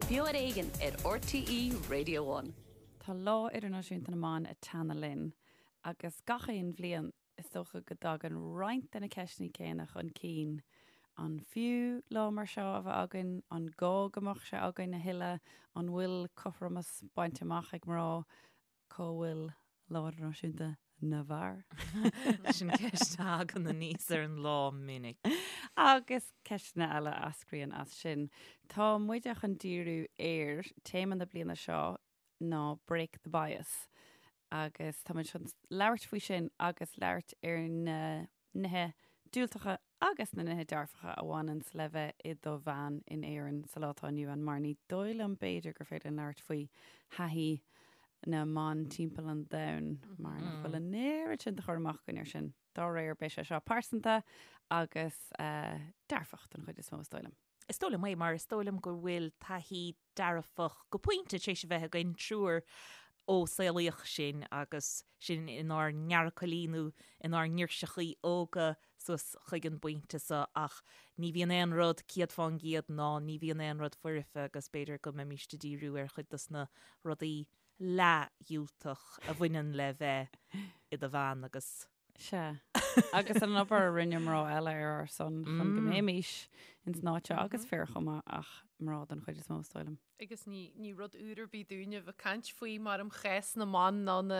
Beo ar Éigean ar RTÉ Radio One. Tá Lá Idirnáisiúnta na mBan ag teannadh linn agus gach aon bhliain is dócha go dtagann roinnt de na ceisteanna céanna chun cinn. An fiú lá mar seo a bheith againn? An gá go mbeadh sé againn a thuilleadh? An bhfuil cothromas bainte amach ag mná? Cá bhfuil Lá Idirnáisiúnta na bhFear? Sin ceist a thagann aníos ar an lá minic. Agus ceisteanna eile a eascraíonn as sin. Tá muide chun díriú ar téama na bliana seo ná Break the Bias agus tá muid chun labhairt faoi sin agus labhairt ar na nithe diúltacha agus na nithe dearfacha a bhaineanns le bheith i do bhean in Éirinn sa lá atá inniu ann mar ní dóigh liom b'fhéidir gur féidir linn labhairt faoi thaithí na mban timpeall an domhain mar nach bhfuil an oiread sin de chur amach againn air sin. Dá réir beidh sé seo pearsanta agus dearfach den chuid is mó is dóigh liom. Is dóigh liom é, mar is dóigh liom go bhfuil taithí dearfach go pointe tar éis a bheith againn triúr ó saolaíodh sinn agus sinn inár ngearrchailí nó inár ngirseachaí óga suas chuig an bpointe seo ach ní bhíonn aon rud 100% ná ní bhíonn aon rud foirfe agus b'fhéidir go mbeimíst ag díriú ar chuid dos na rudaí leathdhiúltach a bhaineann le bheith i do bhean agus Sea. Agus an obair a rinne mná eile ar ár son chun go mbeimis ins an áit seo agus fir chomh maith ach mná den chuid is mó is dóigh liom. Agus ní, ní rud úr ar bith dúinne a bheith ag caint faoi mar um chás na mban ná na,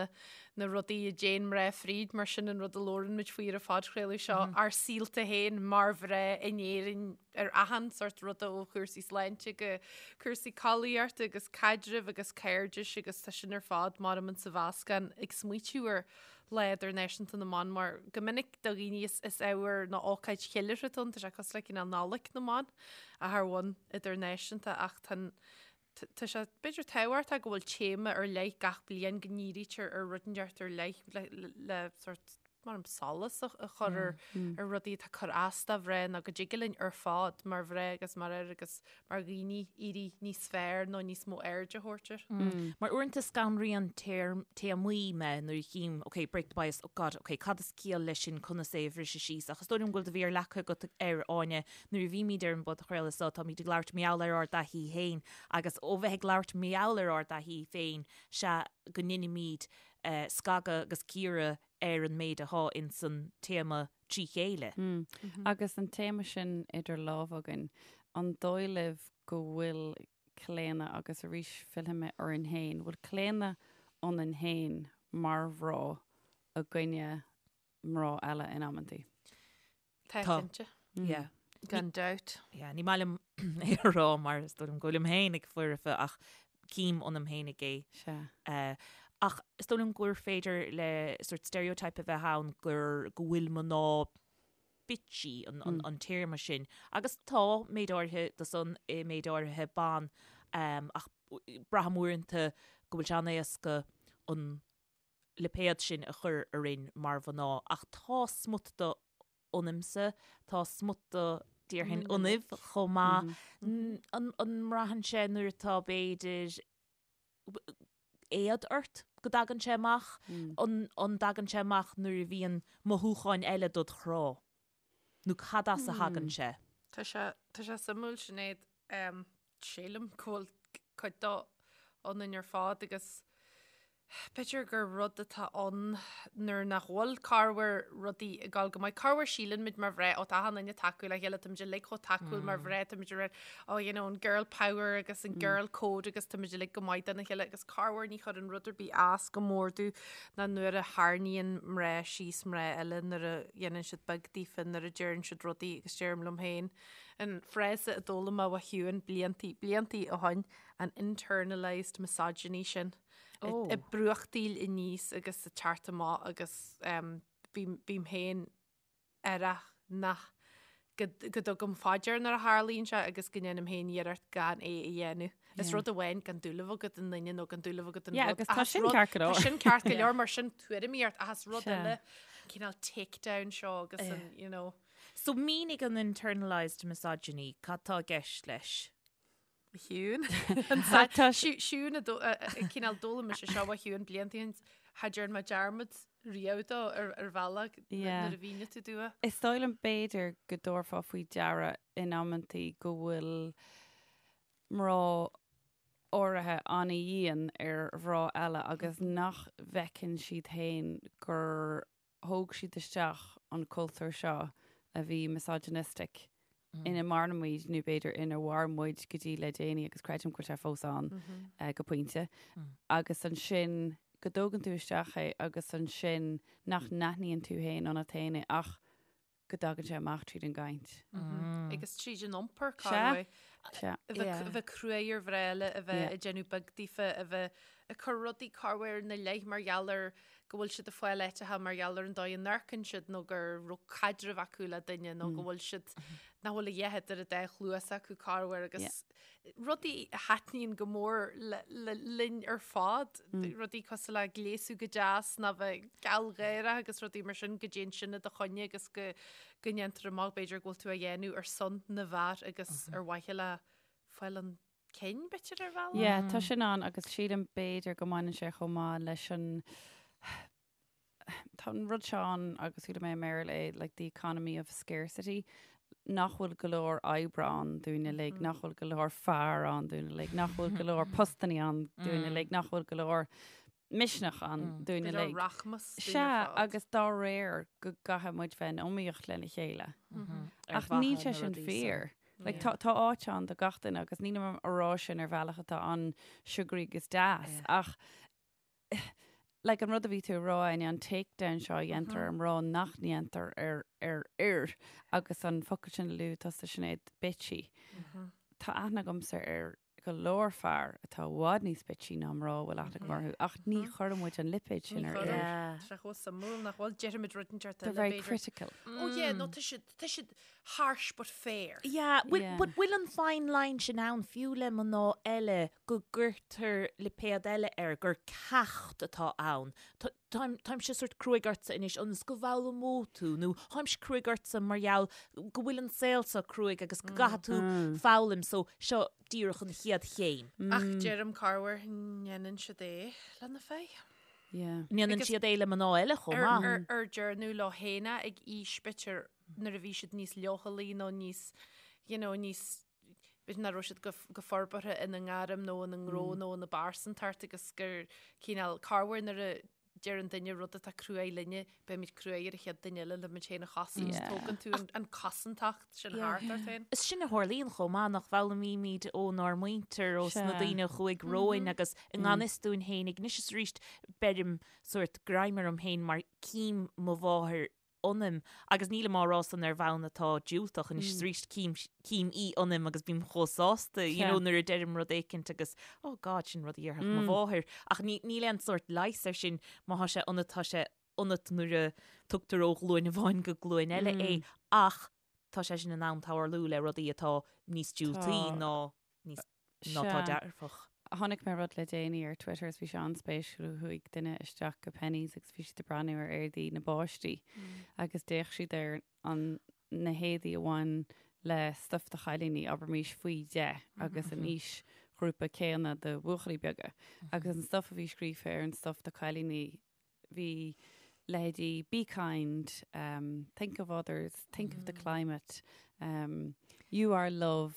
na rudaí a dtéann mná fríd mar sin an rud a labhrann muid faoi ar an phodchraoladh seo, ár saolta féin mar mhná in Éirinn ar achan sort ruda ó chúrsaí sláinte go cúrsaí collaíochta agus caidrimh agus cairdis agus tá sin ar fad mar um sa mheascán ag smaoitiú ar Lá Idirnáisiúnta na mBan mar go minic do dhaoine is is ábhar nó ócáid cheiliúrtha atá ann, tá sé cosúil le cineál Nollaig na mBan ach ar bhonn idirnáisiúnta ach tá an tá sé b'fhéidir tábhachtach go bhfuil téama ar leith gach bliain go ndírítear ar rud inteacht ar leith le le sort mar an solas a a chur ar ar rudaí atá ag cur as do mhná nó go dtig linn ar fad mar mhná agus mar fhir agus mar dhaoine éirí níos fearr nó níos mó aird a thabhairt air. Mar uaireanta scanraíonn téarmaí mé nuair a chím, ok, break the bias, oh God, ok, cad is ciall leis sin, conas é a bhriseadh síos? Ach is dóigh liom go bhfuil do mhéar leagtha agat air, Áine, nuair a bhímid ar an bpodchraoladh seo, táimid ag labhairt mar gheall ar ár dtaithí féin agus ó bheith ag labhairt mar gheall ar ár dtaithí féin, sea go ndeinimid scagadh agus cíoradh ar an méid athá ins an téama trí chéile. Agus an téama sin idir lámha againn, an dóigh libh go bhfuil claonadh, agus arís fillfidh mé orainn féin, bhfuil claonadh ionainn féin mar mhná i gcoinne mná eile in amantaí? Tá cinnte. Yeah. Gan dabht. Yeah, ní maith liom é a rá mar is dóigh liom go bhfuilim féin ag foirfe ach cím ionam féinig é. Sea. Uh, ach is dóigh liom gur féidir le sort stereotype a bheith ann gur go bhfuil mná bitchy an, an, an téarma sin. Agus tá méid áirithe de san i méid áirithe ban um, ach braithim uaireanta go bhfuil sé an-éasca an lipéad sin a chur orainn mar mhná ach tá smut de ionamsa, tá smut de déarfainn ionaibh chomh maith. An mbraitheann sé nuair atá b'fhéidir éad ort go dtagann sé amach? An dtagann sé amach nuair a bhíonn mothúcháin eile dod chrá? Nó cad as a thagann sé? Tá sé, tá sé suimiúil Sinéad, sílim go bhfuil cuid dó ionainn ar fad agus b'fhéidir gur rud atá ann nuair nach bhfuil corruair rudaí ag dul go maith. Corruair síleann muid mar mhná, ó tá achan duine tacúil le chéile, táimid uilig chomh tacúil mar mhná, táimid ar oh you know an girl power agus an girl code agus táimid uilig go maith dona chéile agus corruair ní chuireann rud ar bith as go mór domh ná nuair a tharraingíonn mná síos mná eile nuair a dhéanann siad beag daofa, nuair a deireann siad rudaí agus deirim liom féin an frása a d'fhoghlaim mé ó Shiún bliantaí, bliantaí ó shoin, an internalised misogyny sin. Oh. Ag brúchtaíl aníos agus ag teacht amach agus um, bím, bím féin aireach nach go, go dtugaim faoi deara nuair a tharlaíonn sé agus go ndéanaim féin iarracht gan é a dhéanamh. Is rud amháin gan dúil a bheith agat i nduine nó gan dúil a bheith agat in Yeah, rud. agus tá ach is sin rud- ceart go leor. Tá sin ceart go leor mar sin tuairimíocht ach is rud Sea. eile an cineál takedown seo agus an, you know. So mínigh an internalised misogyny, cad tá i gceist leis? Shiún. Siún a cineál d'fhoghlaim mise seo ó Shiún blianta ó shin cha dtearn mé dearmad riamh dó ar ar bhealach Yeah. nuair a mhínigh tú domh é. Is dóigh liom b'fhéidir go dtabharfá faoi deara in amantaí go bhfuil mná. áirithe an-dhian ar mhná eile agus nach bhfeiceann siad féin gur thóg siad isteach an cultúr seo a bhí misogynistic ina maireann muid nó b'fhéidir ina mhair muid go dtí le déanaí agus creidim go bhfuil sé fós ann go pointe agus ansin go dtógann tú isteach é agus ansin nach n-aithníonn tú féin ionat féin é ach go dtagann sé amach tríd an gcaint. Agus tríd an iompar, cá Sea. A bheith cruaidh ar mhná eile, a bheith ag déanamh beag daofa, a bheith ag cur rudaí corruair ina leith mar gheall ar go bhfuil siad ag fáil áiteacha mar gheall ar an dóigh a n-amharcann siad nó go raibh caidreamh acu le duine nó go bhfuil siad nach bhfuil a dhath idir an dá chluas acu corruair agus rudaí a thaitníonn go mór linn ar fad, rudaí cosúil le gléasadh go deas nó bheith gealgháireach agus rudaí mar sin go dtéann sin i do choinne agus go go ndéantar amach b'fhéidir go bhfuil tú á dhéanamh ar son na bhfear agus ar mhaithe le fáil chun cinn b'fhéidir ar bhealach. Yeah, tá sin ann agus sílim b'fhéidir go mbaineann sé chomh maith leis an Tá an rud seo ann agus chuala mé i mBéarla é, like the economy of scarcity, nach bhfuil go leor oibre ann dúinn uilig, nach bhfuil go leor fear ann dúinn uilig, nach bhfuil go leor postannaí ann dúinn uilig, nach bhfuil go leor misneach ann dúinn Go leor uilig. rachmas dúinn Sea, ar fad. agus dá réir go gcaithfidh muid bheith in iomaíocht lena chéile. Ar Ach níl mhaithe sé na sin rudaí fíor. Like, tá, tá áit ann do gach duine agus nílim á rá sin ar bhealach atá an-sugary agus deas, ach like an rud a bhí tú a rá Áine, an takedown seo a dhéantar ar mná nach ndéantar ar ar fhir agus an focal sin a luaigh tusa Sinéad, bitchy. Tá aithne agamsa ar go leor fear atá i bhfad níos bitchy ná mná a bhfuil aithne agam orthu ach ní chuireann muid an lipéad sin Ní ar chuireann. fhir. Yeah. Tá sé chomh suimiúil nach bhfuil deirimid rud inteacht They're eile very b'fhéidir. critical. Oh yeah, no tá siad tá siad harsh but fair. Yeah, bhfuil Yeah. but bhfuil an fine line sin ann fiú le mná eile go gcuirtear lipéad eile air gur ceacht atá ann. Tá- Táim táimse sort cruaidh ortsa anois ionas go bhfoghlaimeoidh tú nó táimse cruaidh ortsa mar gheall go bhfuil an saol seo cruaidh agus go gcaithfidh tú foghlaim so seo díreach an chéad chéim. Ach deirim corruair ndéanann siad é le na fir. Yeah. Ndéanann Agus siad é le mná eile chomh Ar, maith. ar, ar deireadh leo féin é ag aois b'fhéidir nuair a bhí siad níos leochailí nó níos, you know, níos, b'fhéidir nach raibh siad go, go forbartha ina ngairm nó ina ngnó nó ina bpearsantacht agus gur cineál corruair nuair a deir an duine rud atá cruaidh linne, beimid cruaidh ar an chéad duine eile le muid féin a chosaint, Yeah. tógann tú an, an chosantacht sin thart ort féin. Is sin a tharlaíonn chomh maith nach bhfoghlaimímid ónár muintir, ó sna Sea. daoine a chuaigh romhainn agus i ngan fhios dúinn féinig anois is arís beirim sórt greim orm féin mar cím mo mháthair ionam agus nílim á rá san ar bhonn atá diúltach anois is arís cím cím í ionam agus bím chomh sásta you know nuair a deirim rud éicint agus oh God sin rud a dhéarfadh mo mháthair ach ní níl aon sórt leigheas air sin má thá sé ionat tá sé ionat nuair a tugtar ó ghlúin amháin go glúin eile é ach tá sé sin in ann tarlú le rudaí atá níos diúltaí ná níos ná tá dearfach. Chonaic mé rud le déanaí ar Twitter is bhí sé an-spéisiúil. Chuaigh duine isteach go Penneys agus bhí siad ag breathnú ar éadaí na bpáistí agus d'fhéach siad ar an na héadaí a bhain le stuif do chailíní, abraimis faoi 10 agus an aoisghrúpa céanna do bhuachaillí beaga. Agus an stuif a bhí scríofa ar an stuif do chailíní bhí leithéidí be kind, um, think of others, think of the climate, um, you are love,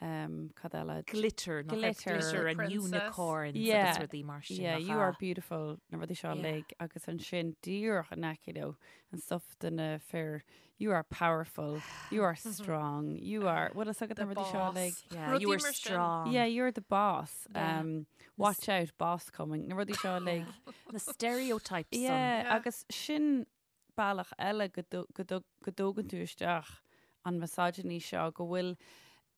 um, cad eile? Glitter, nach raibh Glitter. glitter and Princess. unicorns Yeah. agus rudaí mar sin. Yeah, nach you are ea? beautiful, na rudaí seo Yeah. uilig agus ansin díreach in aice leo an stuff do na fir you are powerful, you are strong, you are, bhfuil fhios agat The na rudaí seo boss. uilig? Yeah, Rudaí you are mar sin. strong. Yeah, you're the boss. Yeah. Um, watch out, boss coming. Na rudaí seo uilig. Na stereotypes san. Yeah, Yeah. agus sin bealach eile go dtu- go dtu- go dtógann tú isteach an misogyny seo go bhfuil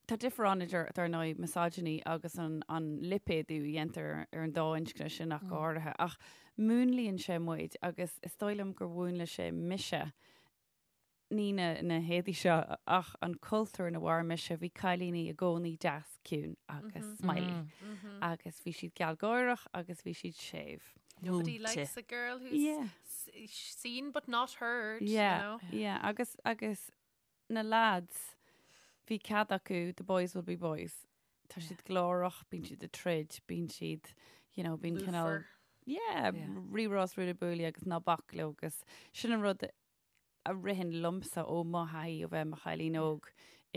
Tá difear ann idir, dar ndóigh, misogyny agus an, an lipéadú a dhéantar ar an dá inscne sin ach go háirithe. Ach múnlaíonn sé muid agus is dóigh liom gur mhúnlaigh sé mise ní na, na héadaí seo ach an cultúr ina mhair mise, bhí cailíní i gcónaí deas, ciúin agus smiley. Agus bhí siad gealgháireach agus bhí siad séimh. Nobody Múinte. likes a girl who's Yeah. s- seen but not heard, you Yeah, know? yeah. Agus, agus na lads, bhí cead acu, the boys will be boys. Tá siad glórach, bíonn siad ag troid, bíonn siad, you know, bíonn cineál, Lúfar. yeah, Yeah. rírá is ruaille buaille agus ná bac leo agus sin an rud a ritheann liomsa ó mo thaithí ó bheith i mo chailín óg.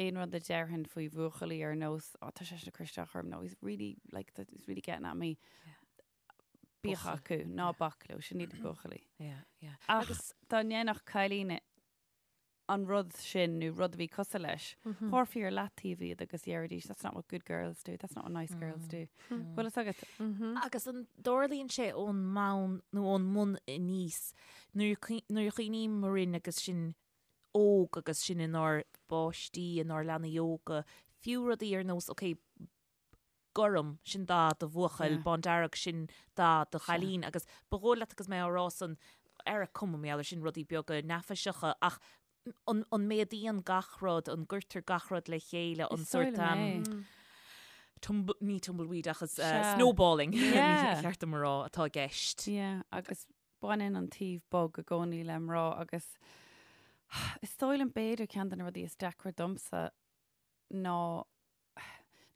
Aon rud a déarfainn faoi bhuachaillí ar nós, oh, tá seisean ag cur isteach orm, no, he's really, like, he's really getting at me. Bíodh acu, ná bac leo, sin iad buachaillí. Yeah, yeah. Ach dá ndéanfadh cailín an rud sin nó rud a bhí cosúil leis, thabharfaí ar leataobh iad agus dhéarfaidís, that's not what good girls do, that's not what nice girls do. Bhfuil fhios agat? Agus an dtarlaíonn sé ón mbonn nó ón mbun aníos, nuair a chuimhním orainn agus sinn óg agus sinn inár bpáistí, inár leanaí óga, fiú rudaí ar nós, ok, gorm, sin dath do bhuachaill, bándearg, sin dath do chailín agus ba dhóigh leat agus mé á rá san ar a cuma mar gheall air sin rudaí beaga neafaiseacha ach an, an méadaíonn gach rud, an gcuirtear gach rud le chéile, an sórt um, tumble, ní tumbleweed ach is uh, snowballing yeah. cheart dom a rá atá i gceist. Yeah, agus baineann an taobh bog i gcónaí le mná agus is dóigh liom b'fhéidir ceann de na rudaí is deacra domsa ná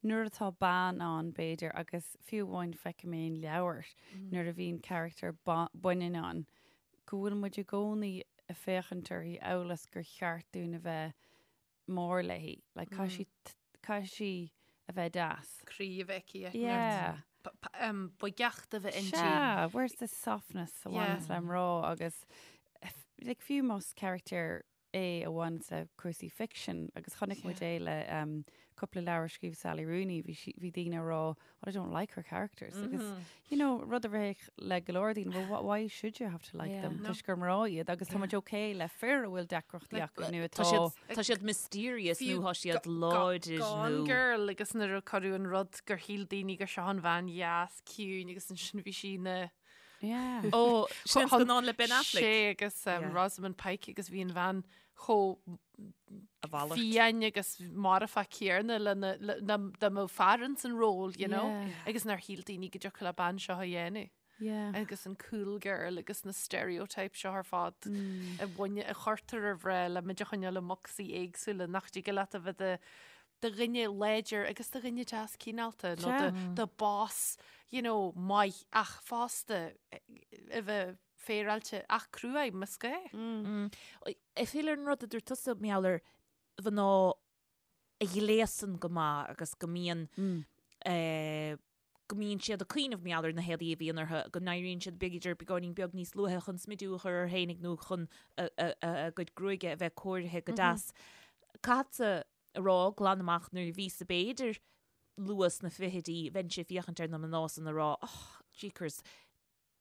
nuair atá bean ann b'fhéidir agus fiú amháin feicim é in leabhair nuair a bhíonn carachtar baineann ann go bhfuil muid i gcónaí ag féachaint uirthi amhail is gur cheart dúinn a bheith mór léi. Like, caithfidh sí, caithfidh sí a bheith deas. Croí a bheith aici. Yeah. Boigeacht a bheith inti. Sea, where's the softness a bhaineanns le mná agus like, fiú más carachtar é a bhaineanns le cúrsaí ficsin agus chonaic muid é le um, cúpla leabhar a scríobh Sally Rooney, bhí sí, bhí daoine ag rá, oh, I don't like her characters. Agus, you know, rud a rithfeadh le go leor daoine, well, wh- why should you have to like them? No. Toisc gur mná iad agus tá muid okay le fir a bhfuil deacrachtaí acu nó Tá atá siad, tá siad mysterious nó tá siad láidir Gone nó. Girl agus nuair a cuireadh an rud gur shíl daoine gur seo an bhean dheas ciúin agus ansin bhí sí ina Yeah. Ó, sin an scannán le Ben Affleck. Sé agus um, Yeah. Rosamund Pike agus bhí an bhean chomh A mhalairt. fiáin agus marfach céanna lena le- na- dá mbeadh fear ins an ról, you know? Yeah. Agus nár shíl daoine go dtiocfadh le bean seo a dhéanamh. Yeah. Agus an cool girl agus na stereotypes seo ar fad Mm. a bhaine a chuirtear ar mhná le muid a choinneáil i mbocsaí éagsúla nach dtig leat a bheith i do dhuine láidir agus do dhuine deas cineálta nó Sea. do do boss, you know, maith ach fosta a bheith féaráilte ach cruaidh más gá. Mm. Ag filleadh ar an rud a dúirt tusa mar gheall ar mhná a ghléasann go maith agus go mbíonn eh, go mbíonn siad ag cuimhneamh mar gheall ar na héadaí a bhíonn orthu, go n-éiríonn siad b'fhéidir beagáinín beag níos luaithe chun smidiú a chur orthu fhéinig nó chun a, a, a, a gcuid gruaige a bheith cóirithe go deas. Caithfeadsa a rá glan amach nuair a bhíos-sa b'fhéidir luath sna fichidí bheinnse ag féachaint ar na mná san ag rá oh, jeekers,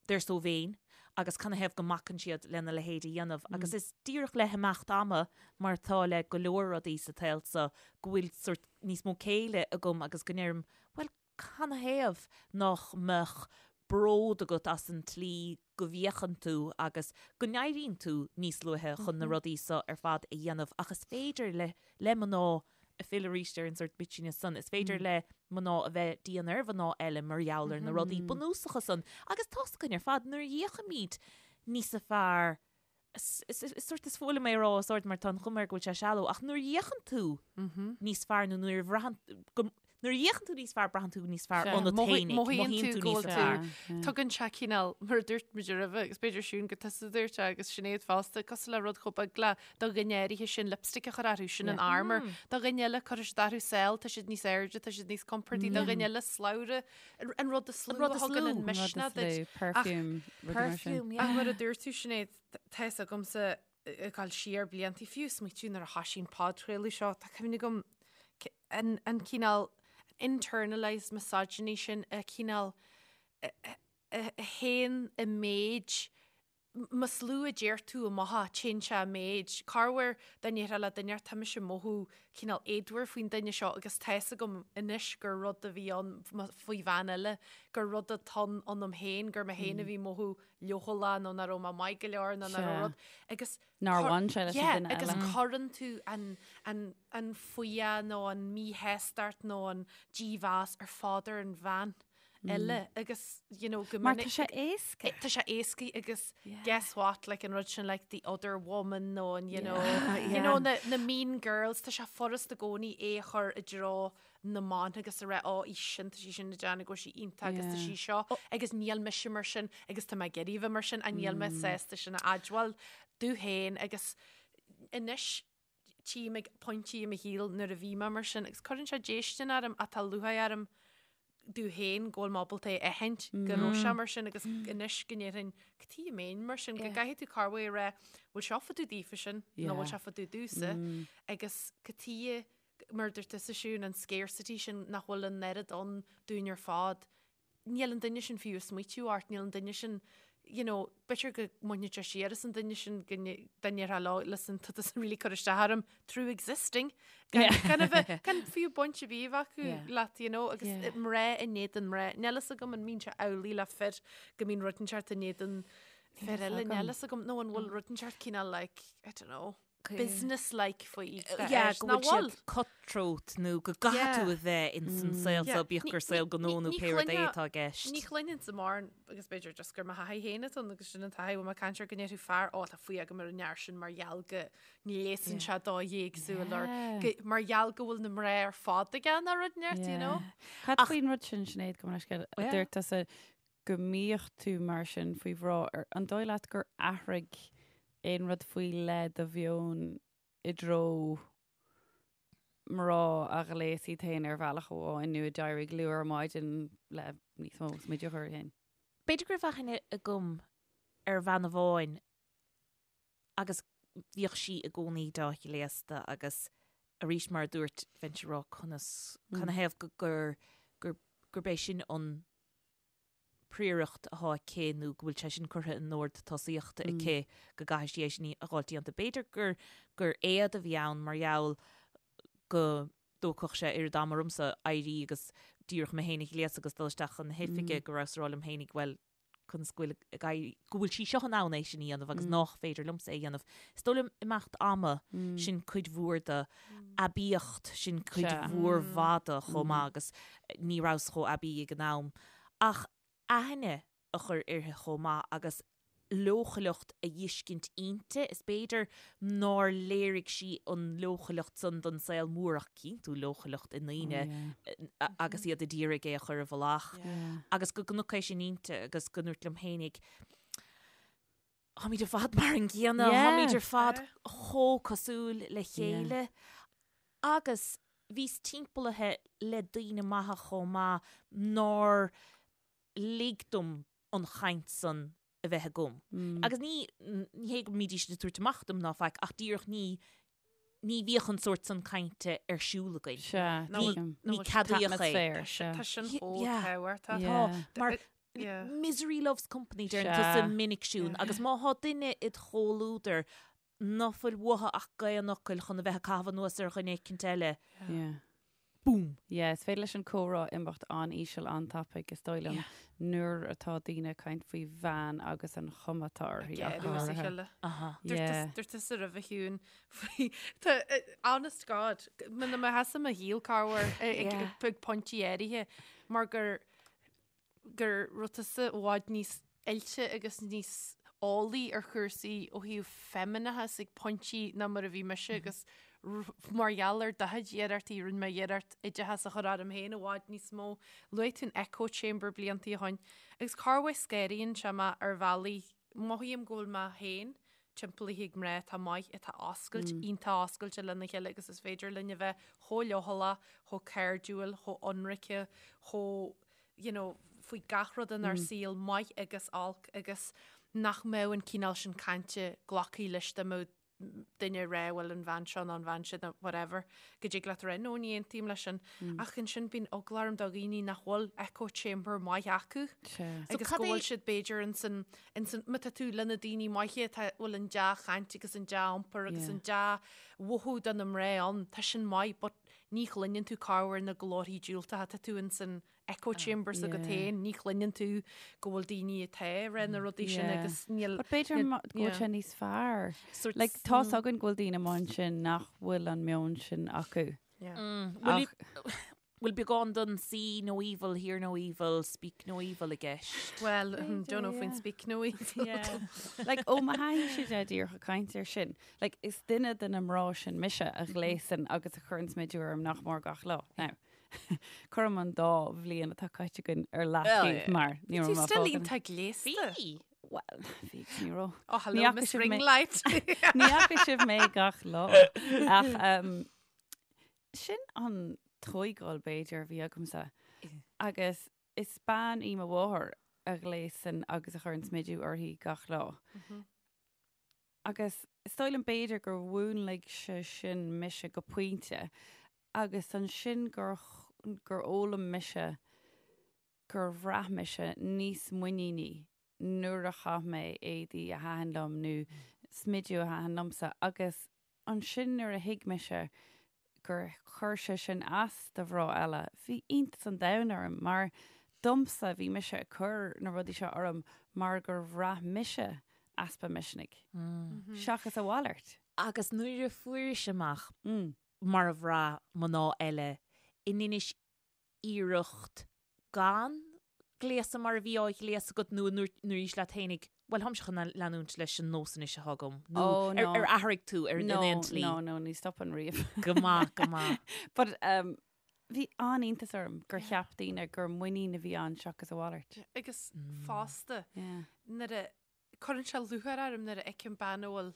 they're so vain agus canathaobh go mbacann siad lena leithéid a dhéanamh agus is díreach le himeacht ama mar atá le go leor rudaí sa tsaol seo go bhfuil sórt níos mó céille agam agus go ndeirim bhuel canathaobh nach mbeadh bród agat as an tslí go bhféachann tú agus go n-éiríonn tú níos luaithe chun na rudaí seo ar fad a dhéanamh ach is féidir le le mná ag filleadh arís ar an sórt bitchiness san, is féidir le mná a bheith dian ar mhná eile mar gheall ar na rudaí bunúsacha san agus tá's againn ar fad nuair a fhéachaimid níos fearr is sórt is fuath liom é a rá os ard mar tá an chuma air go bhfuil sé shallow ach nuair a fhéachann tú níos fearr nó nuair a bhraitheann go Nuair a fhéachann tú níos fearr, braitheann tú níos fearr ionat féinig, Mothaíonn tú go níos bhfuil fearr. tú. Tugann sé cineál, mar a dúirt muid roimhe, agus b'fhéidir Siún gur tusa a dúirt é agus Sinéad fosta, cosúil le rud chomh beag le do dhuine áirithe sin lipstick a chur orthu, sin an armour. Do dhuine eile cuirfidh siad orthu sál, tá siad níos airde, tá siad níos compordaí, do dhuine eile slabhra, an rud is lú a thugann an misneach duit. Perfume, rudaí mar sin. Perfume, Ach yeah. mar a dúirt tú Sinéad, tá fhios agamsa ag dul siar blianta, fiú smaoitiú nuair a thosaigh an podchraoladh seo, tá cuimhne agam an, an cineál internalized misogyny sin, a cineál a théann i méid, más lú a deir tú amach é, téann sé i méid. Corruair dá ndéarfá le duine tá mise ag mothú cineál éadmhar faoin duine seo agus tá fhios agam anois gur rud a bhí ann faoi bhean eile, gur rud atá ann ionam féin, gur mé féin a bhí ag mothú leochaileach nó nach raibh mé maith go leor nó nach raibh rud agus Nár bhain sé leis an duine eile. Agus eile. cuireann tú an, an, an fuath nó an míshástacht nó an dímheas ar fad ar an bhean eile agus you know, go Mar minic tá sé éasca. Tá sé éasca agus guess what like an rud sin like the other woman nó an you know, you know na, na mean girls tá sé furast i gcónaí é a chur i dtreo na mban agus a rá ó í sin tá sí sin ag déanamh go bhfuil sí iontach agus tá sí seo agus níl mise mar sin agus tá mé ag iarraidh a bheith mar sin a níl mé sásta sin a admháil domh féin agus anois. Tchím ag pointí i mo shaol nuair a bhí mé mar sin agus cuireann sé déistin orm ach tá lúcháir orm domh féin go bhfuil mé ábalta é a aithint go raibh sé mar sin agus anois go ndéarfainn cad chuige a mbeinn mar sin go gcaithfidh tú corruair a rá bhfuil seo fá dtaobh daofa sin nó bhfuil sé fá dtaobh domhsa agus cad chuige mar a dúirt tusa Siún an scarcity sin nach bhfuil an oiread ann dúinn ar fad níl an duine sin fiú ag smaoitiú ort, níl an duine sin, you know, b'fhéidir go mbainfeadh sé siar as an duine sin go ndéarfá leo, listen, tá tusa really cur isteach orm through existing. Gan, gan a bheith, gan fiú baint ar bith a bheith acu Yeah. leat, you know, agus Yeah. mná in éadan mná. Níl fhios agam an mbíonn sé amhlaidh le fir go mbíonn rud inteacht in éadan fir eile, níl fhios agam, nó an bhfuil rud inteacht cineál like, I don't know. business-like faoi. Yeah, go bhfuil siad cutthroat nó go gcaithfidh tú a bheith in san saol seo, bíodh gur saol gnó nó pé rud é atá i gceist. Ní chluinfinn mórán, agus b'fhéidir just gur mo thaithí féin atá ann agus sin an taithí, bhfuil mé ag caint ar go ndéarfadh fear, ó tá fuath agam ar an fhear sin mar gheall go ngléasann sé dóigh éagsúil or mar gheall go bhfuil na mná ar fad aige nó rud inteacht, you know. Cad faoin rud sin, Sinéad, gabh mo leithscéal, a dúirt tusa go mbíodh tú mar sin faoi mhná, an dóigh leat gur athraigh aon rud faoi leith do mheon i dtreo mná a ghléas iad féin ar bhealach amháin nó a d'éirigh luath ar maidin le níos mó smideadh a chur orthu féin? B'fhéidir go raibh aithne agam ar bhean amháin agus bhíodh sí i gcónaí dea-ghléasta agus arís mar a dúirt, bheinnse ag rá conas, canathaobh go gur, gur, gurb é sin an príoracht atá aici nó go bhfuil sé sin curtha in ord tosaíochta aici go gcaithfidh sí é sin a dh'fháilt déanta. B'fhéidir gur gur éad a bhí ann mar gheall go dtógfadh sé oiread ama ormsa éirí agus díreach mé féin a ghléasadh agus dul isteach chun na hoifige go rabhas ag rá liom féinig bhuel conas go bhfuil ag éirí go bhfuil sí seo in ann é sin a dhéanamh agus nách féidir liomsa é a dhéanamh. Is dóigh liom imeacht ama sin cuid mhór de aibíocht sin cuid mhór mhaith de chomh maith agus ní rabhas chomh aibí ag an am. Ach aithne a chur uirthi chomh maith agus leochaileacht a dh'fheiscint inti, is b'fhéidir nár léirigh sí an leochaileacht san don saol mór ach cíonn tú leochaileacht i ndaoine agus iad a d'iarraidh é a chur i bhfolach agus go gconac é sin inti agus go ndúirt liom fhéinig, Táimid ar fad mar an gcéanna, táimid ar fad chomh cosúil le chéile agus bhíos timpeallaithe le daoine maithe chomh maith nár lig dom an chaint san a bheith agam. Agus ní, ní hé go mbídís ag tabhairt amach dom ná faic ach díreach ní, ní bhíodh an sórt san cainte ar siúl againn. Sea, Ní, ní ceadaíodh é. Tá sin chomh tábhachtach. Tá, mar misery loves company deireann tusa minic Siún agus má thá duine id chomhluadar ná fuil uathu ach gaoth an fhocail chun a bheith ag caitheamh anuas ar dhuine eicint eile, boom! Yeah, is féidir leis an comhrá imeacht an-íseal an-tapaidh, is dóigh liom, nuair atá daoine ag caint faoi bhean agus an chuma atá uirthi ach go háirithe. Dúirt tusa roimhe Shiún faoi, tá, honest God, muna mbeadh tusa i mo shaol corruair ag pointí áirithe mar gur gur raibh tusa i bhfad níos oilte agus níos eolaí ar chúrsaí ó thaobh feimineachas ag pointí ná mar a bhí mise agus mar gheall ar do chuid iarrachtaí, rinne mé iarracht oideachas a chur orm féin i bhfad níos mó. Luaigh tú an echo chamber bliantaí ó shoin agus corruair scanraíonn sé mé ar bhealaí, mothaím go bhfuil mé féin timpeallaithe ag mná atá maith, atá oscailte, iontach oscailte lena chéile agus is féidir linn a bheith chomh leochaileach, chomh cairdiúil, chomh ionraice, chomh, you know, faoi gach rud inár saol, maith agus olc, agus nach mbeadh an cineál sin cainte glactha leis dá mbeadh duine ag rá bhuel an bhean seo nó an bhean sin nó whatever, go dtig leat a rá no ní aontaím leis sin. Ach ansin bíonn eagla orm do dhaoine nach bhfuil echo chamber maith acu agus go bhfuil siad b'fhéidir insan Insan, má tá tú le na daoine maithe atá, bhfuil an dea-chaint agus an dea-iompar agus an dea-mhothú do na mná ann, tá sin maith but ní chluineann tú corruair na glórthaí diúltacha, tá tú insan echo chamber s'agat féin, ní chluineann tú go bhfuil daoine atá ag rá na rudaí sin agus níl. But b'fhéidir go bhfuil sé níos fearr. Like, tá's againn go bhfuil daoine amuigh ansin nach bhfuil an meon sin acu. Ach. Bhfuil beagán den see no evil, hear no evil, speak no evil i gceist? Well, don't know faoin speak no evil. Like, ó mo thaithí-se de díreach ag caint air sin, like, is duine de na mná sin mise a ghléasann agus a chuireann smideadh orm nach mór gach lá. Now, cuirim an dá bhliain atá caite againn ar leataobh mar ní raibh mé Tú still iontach gléasta. Bhí! Well, bhí agus ní raibh. Oh, hello, Miss Ringlight. Ní fhaca sibh mé gach lá. Ach um, sin an tógáil b'fhéidir a bhí agamsa. Agus is bean í mo mháthair a ghléasann agus a chuireann smidiú uirthi gach lá. Agus is dóigh liom b'fhéidir gur mhúnlaigh sé sin mise go pointe agus ansin gur gur fhoghlaim mise gur bhraith mise níos muiníní nuair a chaith mé éadaí a thaitin liom nó smidiú a thaitin liomsa agus ansin nuair a thuig mise gur chuir sé sin as do mhná eile, bhí iontas an domhain orm mar domsa bhí mise ag cur na rudaí seo orm mar gur bhraith mise easpa misnigh seachas a mhalairt. Agus nuair a fuairis amach mar a bhraith mná eile an ndeinis iarracht gan gléasadh mar a bhí á ghléasadh agat nó an ndúraís leat fhéinig, bhuel, táimse chun leanúint leis an nós anois atá agam nó Oh, no. ar athraigh tú ar in aon tslí? No, no, ní stopann riamh. Go maith, go maith. But um, bhí an-iontas orm gur cheap daoine gur muinín a bhí ann seachas a mhalairt. Agus fosta, Yeah. nuair a Cuireann sé lúcháir orm nuair a fheicim bean a bhfuil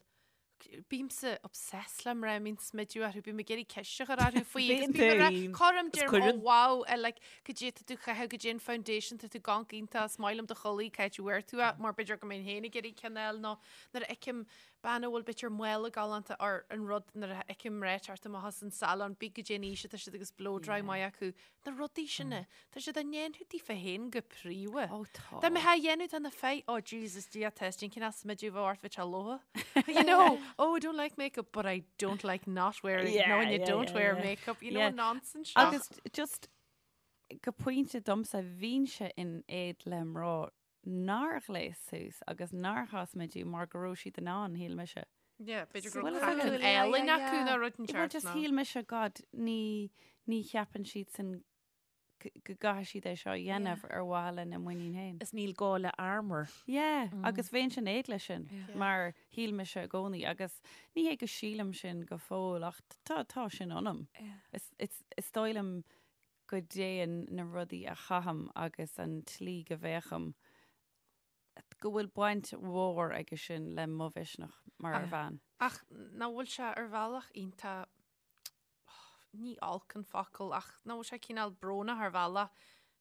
Bímse obsessed le mná a mbíonn smidiú orthu, bím ag iarraidh ceist a chur orthu faoi agus bím ag rá, cuirim, deirim, oh wow, I like, cad é tá tú a chaitheamh, cad é an foundation, tá tú ag amharc iontach, is maith liom do chulaith, cá háit a bhfuair tú é, mar b'fhéidir go mbeinn féin ag iarraidh ceann a fháil nó nuair a fheicim bean a bhfuil b'fhéidir mála galánta or an rud nuair a fheicim mná ag teacht amach as an salon, pé cad é an aois atá siad agus blow dry maith acu, Na rudaí sin, tá siad á ndéanamh daofa féin go príomha. Ó tá. Dá mbeifeá á dhéanamh do na fir, oh Jesus, Dia testing, cén as smidiú bheith ort bheith sé lótha. You know, oh I don't like makeup, but I don't like not wearing, Yeah, no, and you yeah, don't yeah, wear yeah. makeup, you know, Yeah. nonsense seo. Agus just go pointe domsa bhínnse in éad le mná nár ghléas suas agus nár chaith smidiú mar go raibh siad in ann, shíl mise. Yeah, b'fhéidir go Bhuel, raibh is craiceann ea. álainn Yeah, acu yeah. nó rud Well, inteacht just nó. shíl mise, God, ní, ní cheapann siad san go gcaithfidh siad é seo a dhéanamh ar mhaithe lena muinín féin. Is níl gá le armour. Yeah, agus bheinnse in éad leis sin, mar shíl mise i gcónaí, agus ní hé go sílim sin go fóill, ach tá, tá sin ionam. Is, is, is dóigh liom go dtéann na rudaí a chaithim agus an tslí go bhféachaim, go bhfuil baint mhór aige sin le mo mhisneach mar bhean. Ach nach bhfuil sé ar bhealach iontach, ní olc an focal, ach nach bhfuil sé cineál brónach ar bhealach,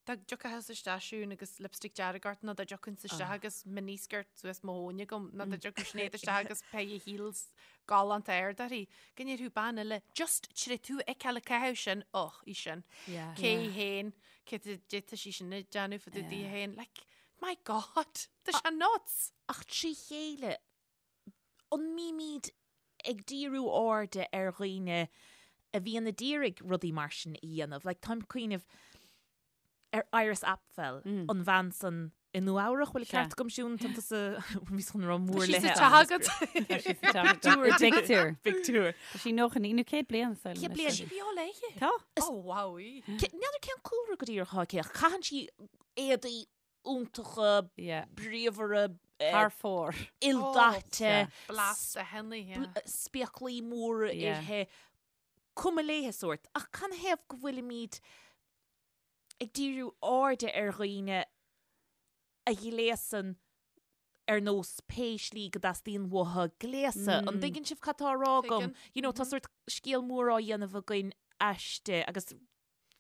dá dtiocfá isteach Siún agus lipstick dearg ort nó dá dtiocfainnse isteach agus miniskirt suas mo thóin agam nó dá dtiocfadh Sinéad isteach agus pair of heels galánta ard uirthi, go ndéarfadh bean eile, just tar éis tú a fheiceáil ag caitheamh sin, och, í sin. Cé hi féin, cé tá sí sin ag déanamh fá dtaobh di féin, like, My God, tá sé nuts! Ach trí chéile, an mbímid ag díriú airde ar dhaoine a bhíonn a d'iarraidh rudaí mar sin a dhéanamh? Like, táim ag cuimhneamh ar Iris Apfel, an bhean san i Nua Eabhrach, bhfuil an ceart agam Siún, tá tusa, bhíos chun rá mór Tá sí léithe. sa teach agat. Tá sí sa teach agat. I bpictiúr. Pictiúr. Tá sí 99 nó 100 bliain sa 100 bliain. Tá sí beo léi. Tá. Oh, wow. í. N'fheadar cén cúlra go díreach atá aici ach caitheann sí éadaí iontacha, bríomhara, Thar fóir. ildaite, Blasta henna, yeah. spéaclaí móra Yeah. uirthi, cuma léithe sórt. Ach canathaobh go bhfuilimid ag díriú airde ar dhaoine a ghléasann ar nós pé slí go dteastaíonn uathu gléasadh. An dtuigeann sibh cad tá á rá agam? Tuigeann. You know, tá sórt scéal mór á dhéanamh againn aisti agus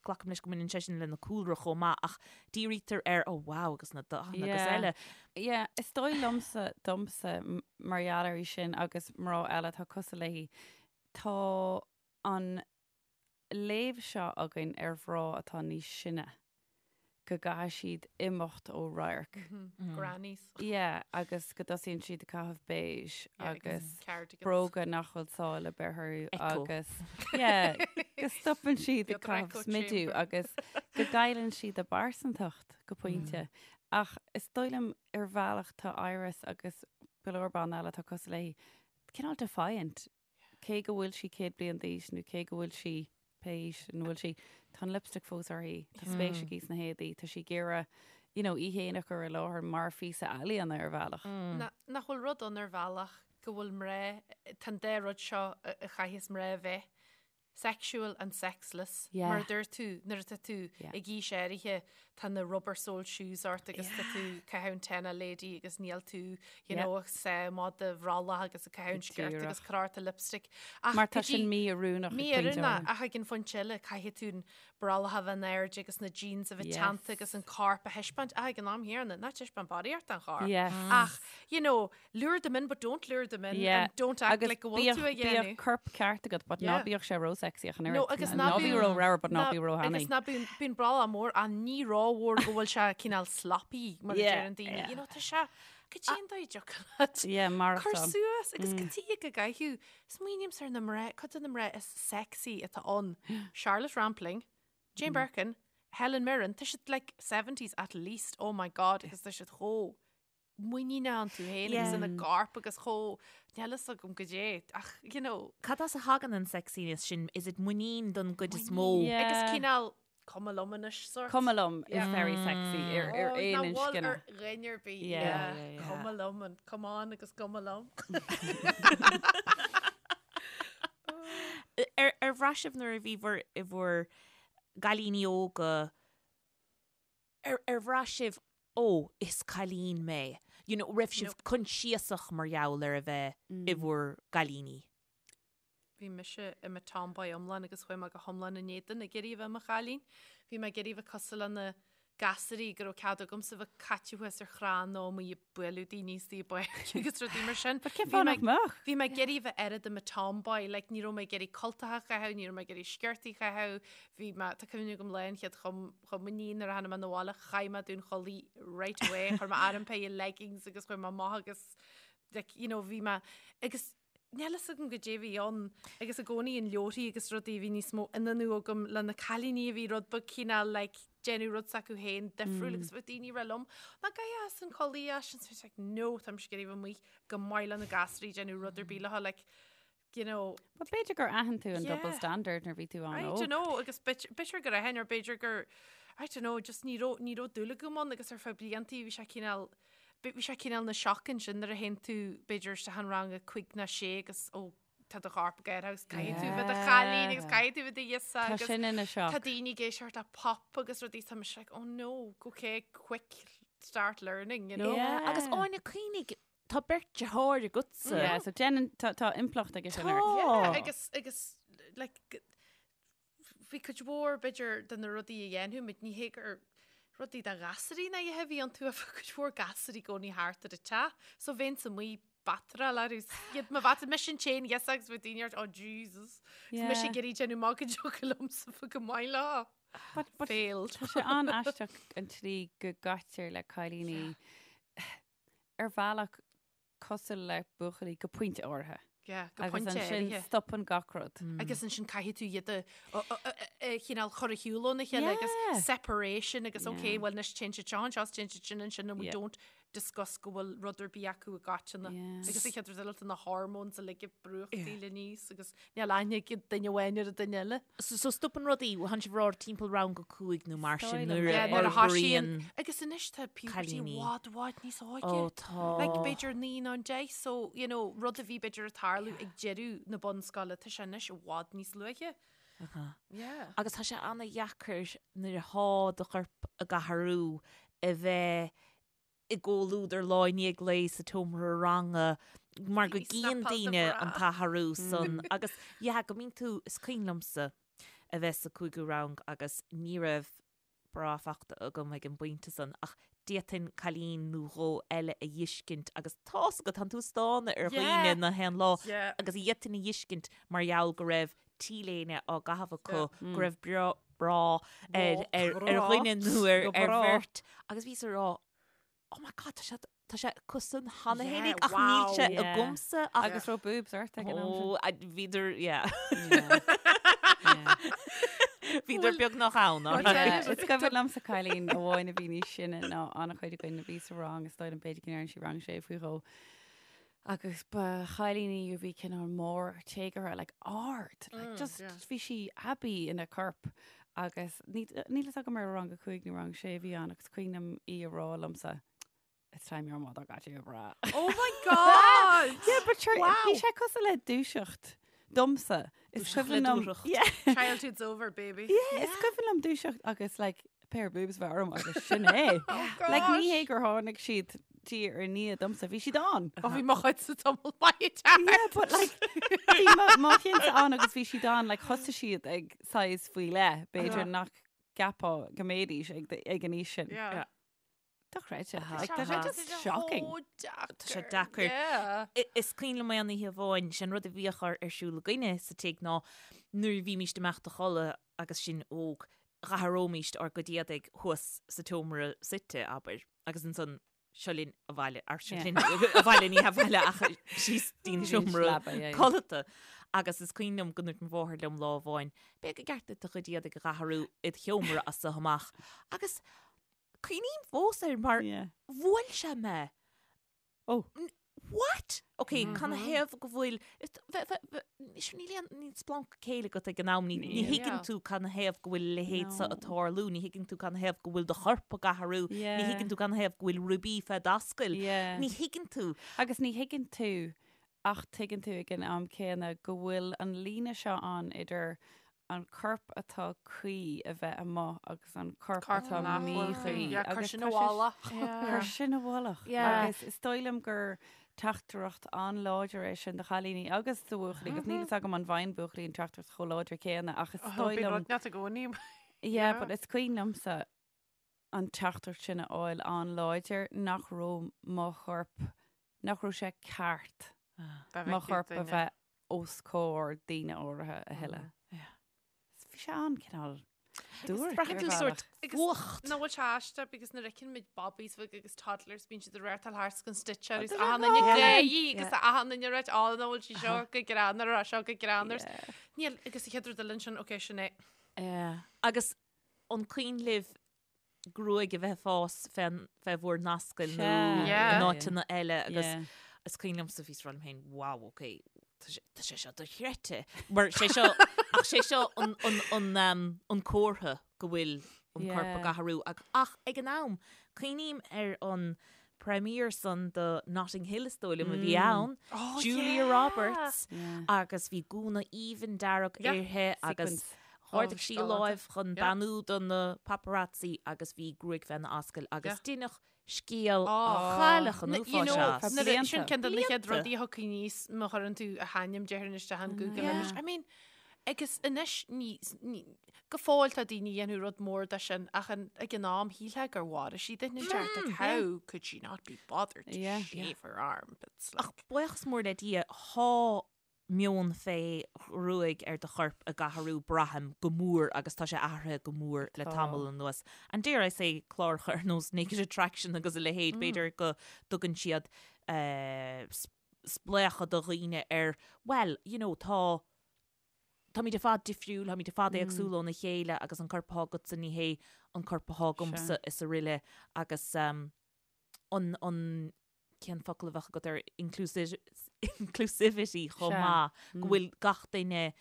glacaim leis go mbaineann sé sin lena cúlra chomh maith ach dírítear ar oh wow agus na dathanna agus Yeah. eile. Yeah, is dóigh liomsa, domsa, m- mar gheall uirthi sin agus mná eile atá cosúil léi, tá an léamh seo againn ar mhná atá níos sine, go gcaithfidh siad imeacht ó radharc. Grannies. Yeah, agus go dtosaíonn siad ag caitheamh beige Yeah, agus cardigans. bróga nach bhfuil sáil ar bith orthu Echo. agus yeah, go stopann siad ag Beag caitheamh echo smidiú chamber. agus go gcailleann siad a bpearsantacht go pointe. Ach is dóigh liom ar bhealach tá Iris agus go leor ban eile atá cosúil léi cineál defiant. Cé go bhfuil sí 100 bliain d'aois nó cé go bhfuil sí pé aois ina bhfuil sí, tá an lipstick fós uirthi, tá spéis aici sna héadaí, tá sí ag iarraidh, you know, í féin a chur i láthair mar phíosa ealaíona ar bhealach. Nach bhfuil rud ann ar bhealach go bhfuil mná, tá an dá rud seo a chaithfeas mná a bheith, sexual and sexless, Yeah. mar a dúirt tú, nuair atá tú Yeah. ag aois áirithe. tá na rubber sole shoes ort agus tá tú ag caitheamh an TENA Lady agus níl tú, you know, ag sá amach do bhrollach agus ag caitheamh an sciort agus cur ort an lipstick. Ach Mar tá sin mí-oiriúnach ag pointe Mí-oiriúnach ach ag an phointe eile caithfidh tú an brollach a bheith in airde agus na jeans a bheith teannta agus an corp a thaispeáint. Ach ag an am chéanna, ná taispeáin barraíocht den chorp. Ach, you know, lure them in but don't lure them in Yeah. and don't act Agus like go bhfuil tú a bíodh bíodh dhéanamh. corp ceart agat but ná Yeah. bíodh sé ró-sexy ach an No, oiread. agus Ná ná bí bíonn- ró-ramhar but ná ná- bí ró-thanaí. Agus ná bíonn bíonn brollach mór ach ní rómhór go bhfuil sé cineál sloppy mar a Yeah, deireann daoine. yeah. You know, tá sé cad é an dóigh a dtiocfadh leat Yeah, cur maireachtáil. suas agus cad tuige go gcaithfidh smaoinímse ar na mná, cuid de na mná is sexy atá ann. Charlotte Rampling, Jane Birkin, Helen Mirren, tá siad like 70s at least, oh my god, agus tá siad chomh muiníneach iontu féin agus ina gcorp agus chomh, níl fhios agam goidé, ach, you know. Cad as a thagann an sexiness sin? Is it muinín don gcuid is mó? Yeah. Agus cineál cuma liom anois sort. Cuma liom is very sexy ar ar Oh, aon nach bhfuil inscne. ar dhuine ar bith. Yeah. Yeah, Yeah, yeah. Cuma liom and come on agus cuma liom. Ar ar bhraith sibh nuair a bhí bhur i bhur gcailíní óga ar ar bhraith sibh ó is cailín mé? You know, raibh sibh coinsiasach mar gheall ar a bheith i bhur gcailíní? Bhí mise i mo tomboy iomlán agus chuaigh mé go hiomlán in éadan ag iarraidh a bheith i mo chailín. Bhí mé ag iarraidh a bheith cosúil le na gasúirí go raibh cead agamsa bheith caite thuas ar chrann nó amuigh ag bualadh daoine istigh i bpáirc agus rudaí mar sin. But cén Bhí fáth mé nach mbeadh? Bhí mé ag iarraidh a bheith oiread i mo tomboy, like ní raibh mé ag iarraidh cultacha a chaitheamh, ní raibh mé ag iarraidh sciortaí a chaitheamh, bhí mé, tá cuimhne agam lá an chéad chom, chomaoiní nuair a tháinig mé 'na bhaile, chaith mé dúnchulaith right away, chuir mé orm pair of leggings agus chuaigh mé amach agus like, you know, bhí mé, agus níl fhios agam goidé a bhí ann agus i gcónaí in leabharthaí agus rudaí bhí níos mó ionannú agam le na cailíní a bhí rud beag cineál like déanamh rud s'acu féin difriúil agus bheadh daoine ag rá liom ná gabh as an culaith as sin so like no tá mise ag iarraidh a bheith amuigh go maith le na gasúirí déanamh rud ar bith leo like you know But b'fhéidir gur aithin tú an double Yeah. standard nuair a bhí tú I an-óg. don't know agus b'fhéidir gur aithin or b'fhéidir gur I don't know just ní raibh ní raibh dúil agam ann agus ar feadh bliantaí bhí sé cineál bhí sé cineál ina shock ansin nuair a théann tú b'fhéidir isteach in rang a cúig nó sé agus ó tá do chorp ag athrú agus caithfidh tú bheith i do chailín agus caithfidh tú bheith i do ghirseach Tá agus sin ina shock. tá daoine ag éisteacht le pop agus rudaí tá mise like oh no okay quick start learning you know. Yeah. Agus Áine cuimhnigh tá beirt deartháir agatsa. Yeah, so déanann tá tá impleacht aige sin ort. Tá. Yeah, agus agus like g- bhí cuid mhór b'fhéidir de na rudaí a dhéanfadh muid, ní hé gur rudaí do ghasúirí ná a dhath a bhí iontu ach bhí cuid mhór gasúirí i gcónaí thart ar an teach so bheinnse amuigh batráil orthu 's iad mo bhat mise an t-aon ghirseach agus bhí daoine ort oh Jesus 's mise ag iarraidh déanamh amach go dtiocfadh liomsa bheith go maith leo. But, but Failed. Tá sé an-aisteach an tslí go gcaitear le cailíní ar bhealach cosúil le buachaillí go pointe áirithe. Yeah, go Agus pointe ansin áirithe. stopann gach rud. Agus ansin caithfidh tú iad a a chineál chur ar shiúl óna chéile agus Yeah. separation agus Yeah. okay, well anois téann siad seo anseo is téann siad sin ansin and we Yeah. don't discuss go bhfuil rud ar bith acu i gcoitinne. Yeah. Agus an chéad rud eile tá na hormones uilig ag brúchtaíl aníos agus níl aithne ag duine amháin ar an duine eile. So, so stopann rudaí, tánn sibh ag rá timpeall rang a cúig nó mar sin Is dóigh liom. nuair a Yeah, nuair a fhorbraíonn thosaíonn agus anois tá puberty i cailíní. bhfad bhfad níos óige. Ó tá. Like b'fhéidir naoi nó an deich so you know rud a bhí b'fhéidir ag tarlú ag deireadh na bunscoile tá sé anois i bhfad níos luaithe. Yeah. Agus tá sé ana-dheacair nuair atá do chorp ag athrú a bheith i gcomhluadar lá i ndiaidh lae sa tseomra ranga mar go Bhí gcíonn snapáil daoine an bhreá. t-athrú san agus yeah go mbíonn tú, is cuimhin liomsa a bheith sa cúigiú rang agus ní raibh bra fachta agam ag an bpointe san ach d'fhéadfainn cailín nó dhó eile a dh'fheiscint agus tá's agat, tánn tú ag stánadh ar dhaoine Yeah. na haon lá Yeah. agus d'fhéadfainn a dh'fheiscint mar gheall go raibh T-léine á gcaitheamh acu, go raibh bra ar ar ar dhuine nó ar ar bheirt agus bhíos ag rá oh my god tá sé tá sé acusan cheana fhéinig ach níl sé agamsa ach agus raibh boobs ort ag an am sin. Ó bhíodar yeah. Bhíodar beagnach ann. Is cuimhin liomsa cailín amháin a bhí níos sine ná an-chuid againn a bhí sa rang is dóigh liom b'fhéidir go ndearna sí rang sé faoi dhó. Agus ba chailín í a bhí cineál mór téagartha, like ard, like just bhí sí aibí ina corp agus níl fhios agam ar rang a cúig nó rang sé a bhí ann agus cuimhin liom í a rá liomsa, It's time your mother got you a bra. Oh my God! Yeah, but sure, bhí sé cosúil le dúiseacht domsa. Is cuimhin liom. Yeah. Childhood's over, baby. Yeah, is cuimhin liom dúiseacht agus like. pair of boobs bheith orm agus sin é. Like ní hé gur tháinig siad diaidh ar ndiaidh domsa, bhí siad ann. Ó bhí mo chuid sa tamall maith dear. Yeah, but like bhí mo mo chinnse ann agus bhí siad ann like thosaigh siad ag size faoi leith, b'fhéidir nach gceapfá go mbeidís ag ag an aois sin. Yeah. Dochreidte. Like tá sé just shocking. Tá sé deacair. Yeah. Is cuimhin liom aon oíche amháin, sin rud a bhíodh ar ar siúl againne sa tigh ná nuair a bhímíst ag imeacht a chodladh agus sinn óg, dh'athróimíst ár gcuid éadaigh thuas sa tseomra suite, abair, agus ansan seo linn abhaile, ar seo linn abhaile, ní abhaile ach síos dtí'n seomra codlata. Agus is cuimhin liom go ndúirt mo mháthair liom lá amháin, Beidh go gceart duit do chuid éadaigh a dh'athrú id sheomra as so amach. Agus cuimhním fós air mar bhuail sé mé. Oh. What? Ok, cad 'na thaobh go bhfuil, níl aon, níl splanc céille agat ag an am, ní thuigeann tú cad 'na thaobh go bhfuil a leithéid seo ag tarlú, ní thuigeann tú cad 'na thaobh go bhfuil do chorp ag athrú, ní thuigeann tú cad 'na thaobh go bhfuil ribí fé d'ascaill, ní thuigeann tú. Agus ní thuigeann tú Ach tuigeann tú ag an am céanna go bhfuil an líne seo ann idir an corp atá cuí a bheith amuigh agus an corp atá míchuí. Yeah, cuir sin i bhfolach. Cuir sin i bhfolach. Agus is dóigh liom gur teachtaireacht an-láidir é sin do chailíní agus do bhuachaillí, agus níl fhios agam an bhfaigheann buachaillí an teachtaireacht chomh láidir céanna ach is dóigh liom... Bíonn rud inteacht i gcónaí. Yeah, but is cuimhin liomsa an teachtaireacht sin a fháil an-láidir nach raibh mo chorp nach raibh sé ceart mo chorp a bheith os comhair daoine áirithe a thuilleadh. Bhí sé an-cineál duairc ar bhealach. Fuacht. Nach bhfuil sé aisteach because nuair a fheiceann muid babies bheaga agus toddlers bíonn siad ag reáchtáil thart gan stitch agus achan duine ag gáirí agus achan duine ag ráit á nach bhfuil sí seo go greannmhar á seo go greannmhar. Níl agus an chéad rud eile ansin ok sin é. Agus an cuimhin libh gruaig a bheith ag fás fé fé bhur n-ascaill nó in áiteanna eile agus is cuimhin liomsa bhíos ag rá liom féin wow ok tá sé seo dochreidte mar sé seo ach sé seo an an an um, an comhartha go bhfuil an corp ag athrú ach ach ag an am cuimhním ar an premiere san do Notting Hill is dóigh liom a bhí ann oh, Julia yeah. Roberts agus bhí gúna aoibhinn dearg uirthi agus Ardaigh sí a láimh chun beannú do na paparazzi agus bhí gruaig féna ascaill agus deineadh scéal chailleach an uafáis as. Sin ceann de na chéad rudaí a thiocfaidh aníos má chuireann tú a hainm déarfainn isteach in Google anois. I mean, agus anois ní, go fóill tá daoine a dhéanfadh rud mór de sin ach ag an am shílfeá gur mharaigh sí duine inteacht. Like, how could she not be bothered to shave her armpits? Ach buíochas mór le Dia, thá meon fé ghruaig ar do chorp ag athrú, braithim, go mór agus tá sé athraithe go mór le tamall anuas. And dare I say, cláracha ar nós Naked Attraction agus a leithéid, b'fhéidir go dtugann siad spléachadh do dhaoine ar, well, you know, tá, táimid ar fad difriúil, táimid ar fad éagsúil óna chéile agus an corp atá agatsa ní hé an corp atá agamsa is araile agus an, an, cén focal a bheadh agat ar inclusivity chomh maith, go bhfuil gach duine,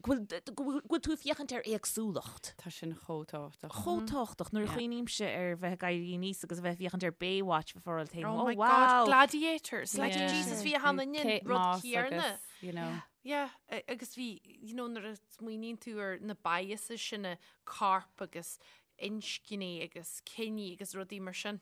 go bhfuil tú ag féachaint ar éagsúlacht. Tá sin chomh tábhachtach. Chomh tábhachtach. Nuair a chuimhnímse ar bheith ag éirí aníos agus a bheith ag féachaint ar Baywatch bheifeá ag rá leat féin, oh wow! Oh my God, Gladiators! Like Jesus, bhí achan duine an rud céanna. You know. Yeah, agus bhí, you know, nuair a smaoiníonn tú ar na biases sin, corp agus inscní agus ciní agus rudaí mar sin.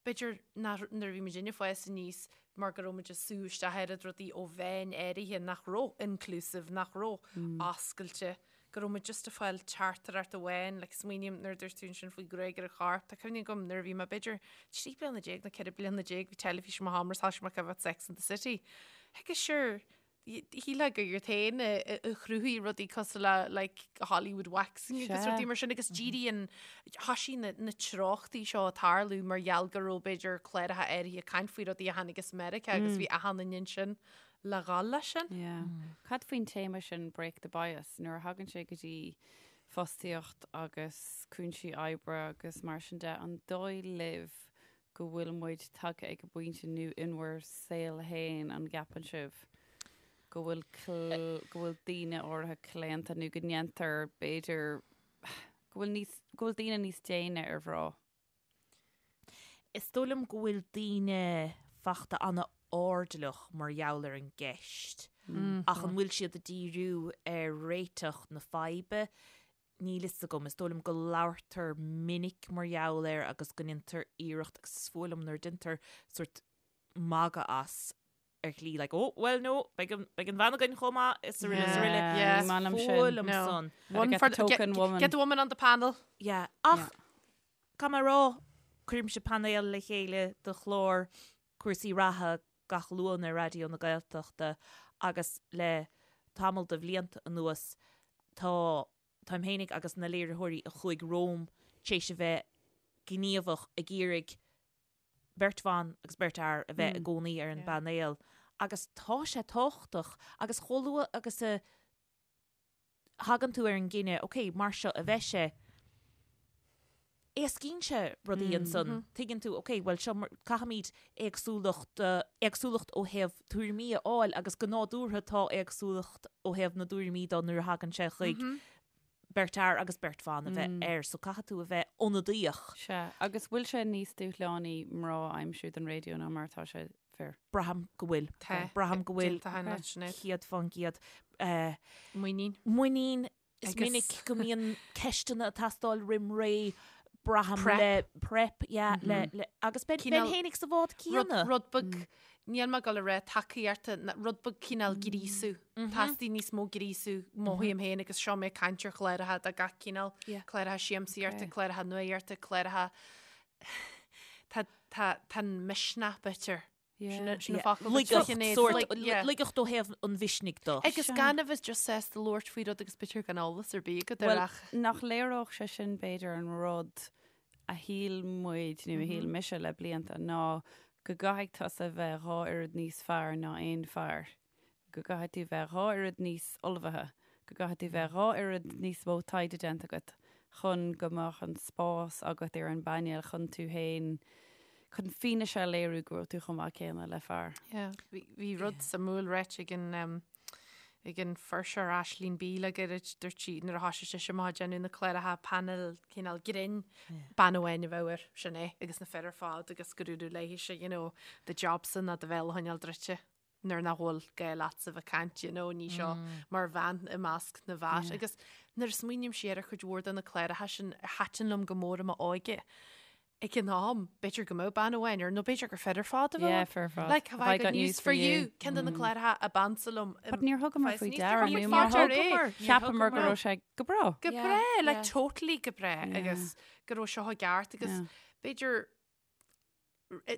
B'fhéidir nach, nuair a bhí muidinne ag fás aníos mar go raibh muid ag sú isteach oiread rudaí ó mheáin áirithe nach raibh inclusive, nach raibh oscailte, go raibh muid just ag fáil teachtaireacht amháin, like smaoiním nuair a dúirt tú ansin faoi ghruaig ar an chorp, tá cuimhne agam nuair a bhí mé b'fhéidir 13 bliana nó 14 bliana, bhí teilifís i mo sheomra, thosaigh mé ag coimhéad Sex and the City. Agus sure, Shílfeá gur iad féin a chruthaigh rudaí cosúil le like Hollywood waxing agus rudaí mar sin agus díríonn thoisigh na na treochtaí seo ag tarlú mar gheall go raibh b'fhéidir cláracha áirithe ag caint faoi rudaí a tháinig as Meiriceá agus bhí achan duine ansin le dhul leis sin. Yeah. Cad faoin téama sin break the bias nuair a thagann sé go dtí fostaíocht agus cúinsí oibre agus mar sin de, an dóigh libh go bhfuil muid tagtha ag an bpointe nó in bhur saol fhéin, an gceapann sibh go bhfuil go bhfuil daoine áirithe claonta nó go ndéantar b'fhéidir go bhfuil níos go bhfuil daoine níos déine ar mhná? Is dóigh liom go bhfuil daoine fachta an-airdeallach mar gheall ar an gceist ach an bhfuil siad ag díriú ar réiteach na faidhbe? Níl fhios agam, is dóigh liom go labhartar minic mar gheall air agus go ndéantar iarracht agus is fuath liom nuair a déantar sórt magadh as ar shlí like oh well no beidh an beidh an bhean againn chomh maith is araile is araile. Yeah. Is fuath liom No. san. One get for the the, get, token woman. get the woman on the panel. Yeah. Ach caithfidh mé a rá cuirimse painéal le chéile do chlár cúrsaí reatha gach Luan ar Raidió na Gaeltachta agus le tamall de bhlianta anuas tá táim fhéinig agus na léiritheoirí a chuaigh romham tar éis a bheith gníomhach ag iarraidh beirt bhan agus beirt fhear a bheith i gcónaí ar an bpainéal agus tá sé tábhachtach agus chomh luath agus a thagann tú ar an gcinneadh, ok, mar seo a bheidh sé, éascaíonn sé rudaí ansan. Tuigeann tú, ok, bhuel seo, caithfimid éagsúlacht, éagsúlacht ó thaobh tuairimí a fháil agus go nádúrtha tá éagsúlacht ó thaobh na dtuairimí de nuair a thagann sé chuig beirt fhear agus beirt bhan a bheith air, so caithfidh tú a bheith ionadaíoch. Sea, agus bhfuil sé níos dúshlánaí mná a aimsiú don raidió ná mar atá sé fir. Braithim go bhfuil. Tá. Braithim go bhfuil. Déanta cheana, Sinéad. 100%. Muinín. Muinín. Is Agus- minic go mbíonn ceisteanna ag teastáil roim ré, braithim Prep. le prep, yeah, le, le, agus beinn Cineál- féinig sa bhád Rud, céanna. rud beag, níl mé ag dul a rá tacaíochta, ná rud beag cineál gríosú. Teastaíonn níos mó gríosú, mothaím féin agus seo mé ag caint ar chláracha de gach cineál, Yeah. cláracha siamsaíochta, Okay. cláracha nuaíochta, cláracha Tá, tá, tá an misneach b'fhéidir. Yeah. Sin an focal Laigeacht, Sinéad, sórt, like, yeah. laigeacht ó thaobh an mhisnigh de. Agus gan a bheith just sásta labhairt faoi rud agus b'fhéidir gan eolas ar bith agat air Well, ach. nach léireodh sé sin b'fhéidir an rud a shíl muid nó a shíl mise le blianta ná go gcaithfidh tusa bheith dhá oiread níos fearr ná aon fear. go gcaithfidh tú bheith dhá oiread níos ullmhaithe, go gcaithfidh tú bheith dhá oiread níos mó taighde déanta agat chun go mbeadh an spás agat ar an bpainéal chun tú féin, chun fianaise a léiriú go bhfuil tú chomh maith céanna le fear. Yeah, bhí, bhí rud suimiúil ráite ag an, um, ag an fuirseoir Aisling Bea le gairid, dúirt sí nuair a thoisigh sise amach ag déanamh na cláracha painéil cineál grinn, bean amháin a bheadh air, sin é, agus na fir ar fad agus go dúradh léithise, you know, do jobsa ná do bhéal a choinneáil druidte. nuair nach bhfuil gá leatsa bheith ag caint, you know, ní seo mar bhean i measc na bhfear. Agus nuair a smaoiním siar ar chuid mhór de na cláracha sin a thaitin liom go mór i m'óige, ag an am, b'fhéidir go mbeadh bean amháin air, nó b'fhéidir gur fir ar fad a bheadh Yeah, ann. fir ar fad. Like, have I got news for you? Ceann de na cláracha ab ansa liom. But níor thugamar faoi deara, Níor nó mar thugamar faoi deara. Cheapamar go raibh sé go breá. Go Yeah, breá, like yeah. totally go breá, agus go raibh seo i gceart, agus Yeah. b'fhéidir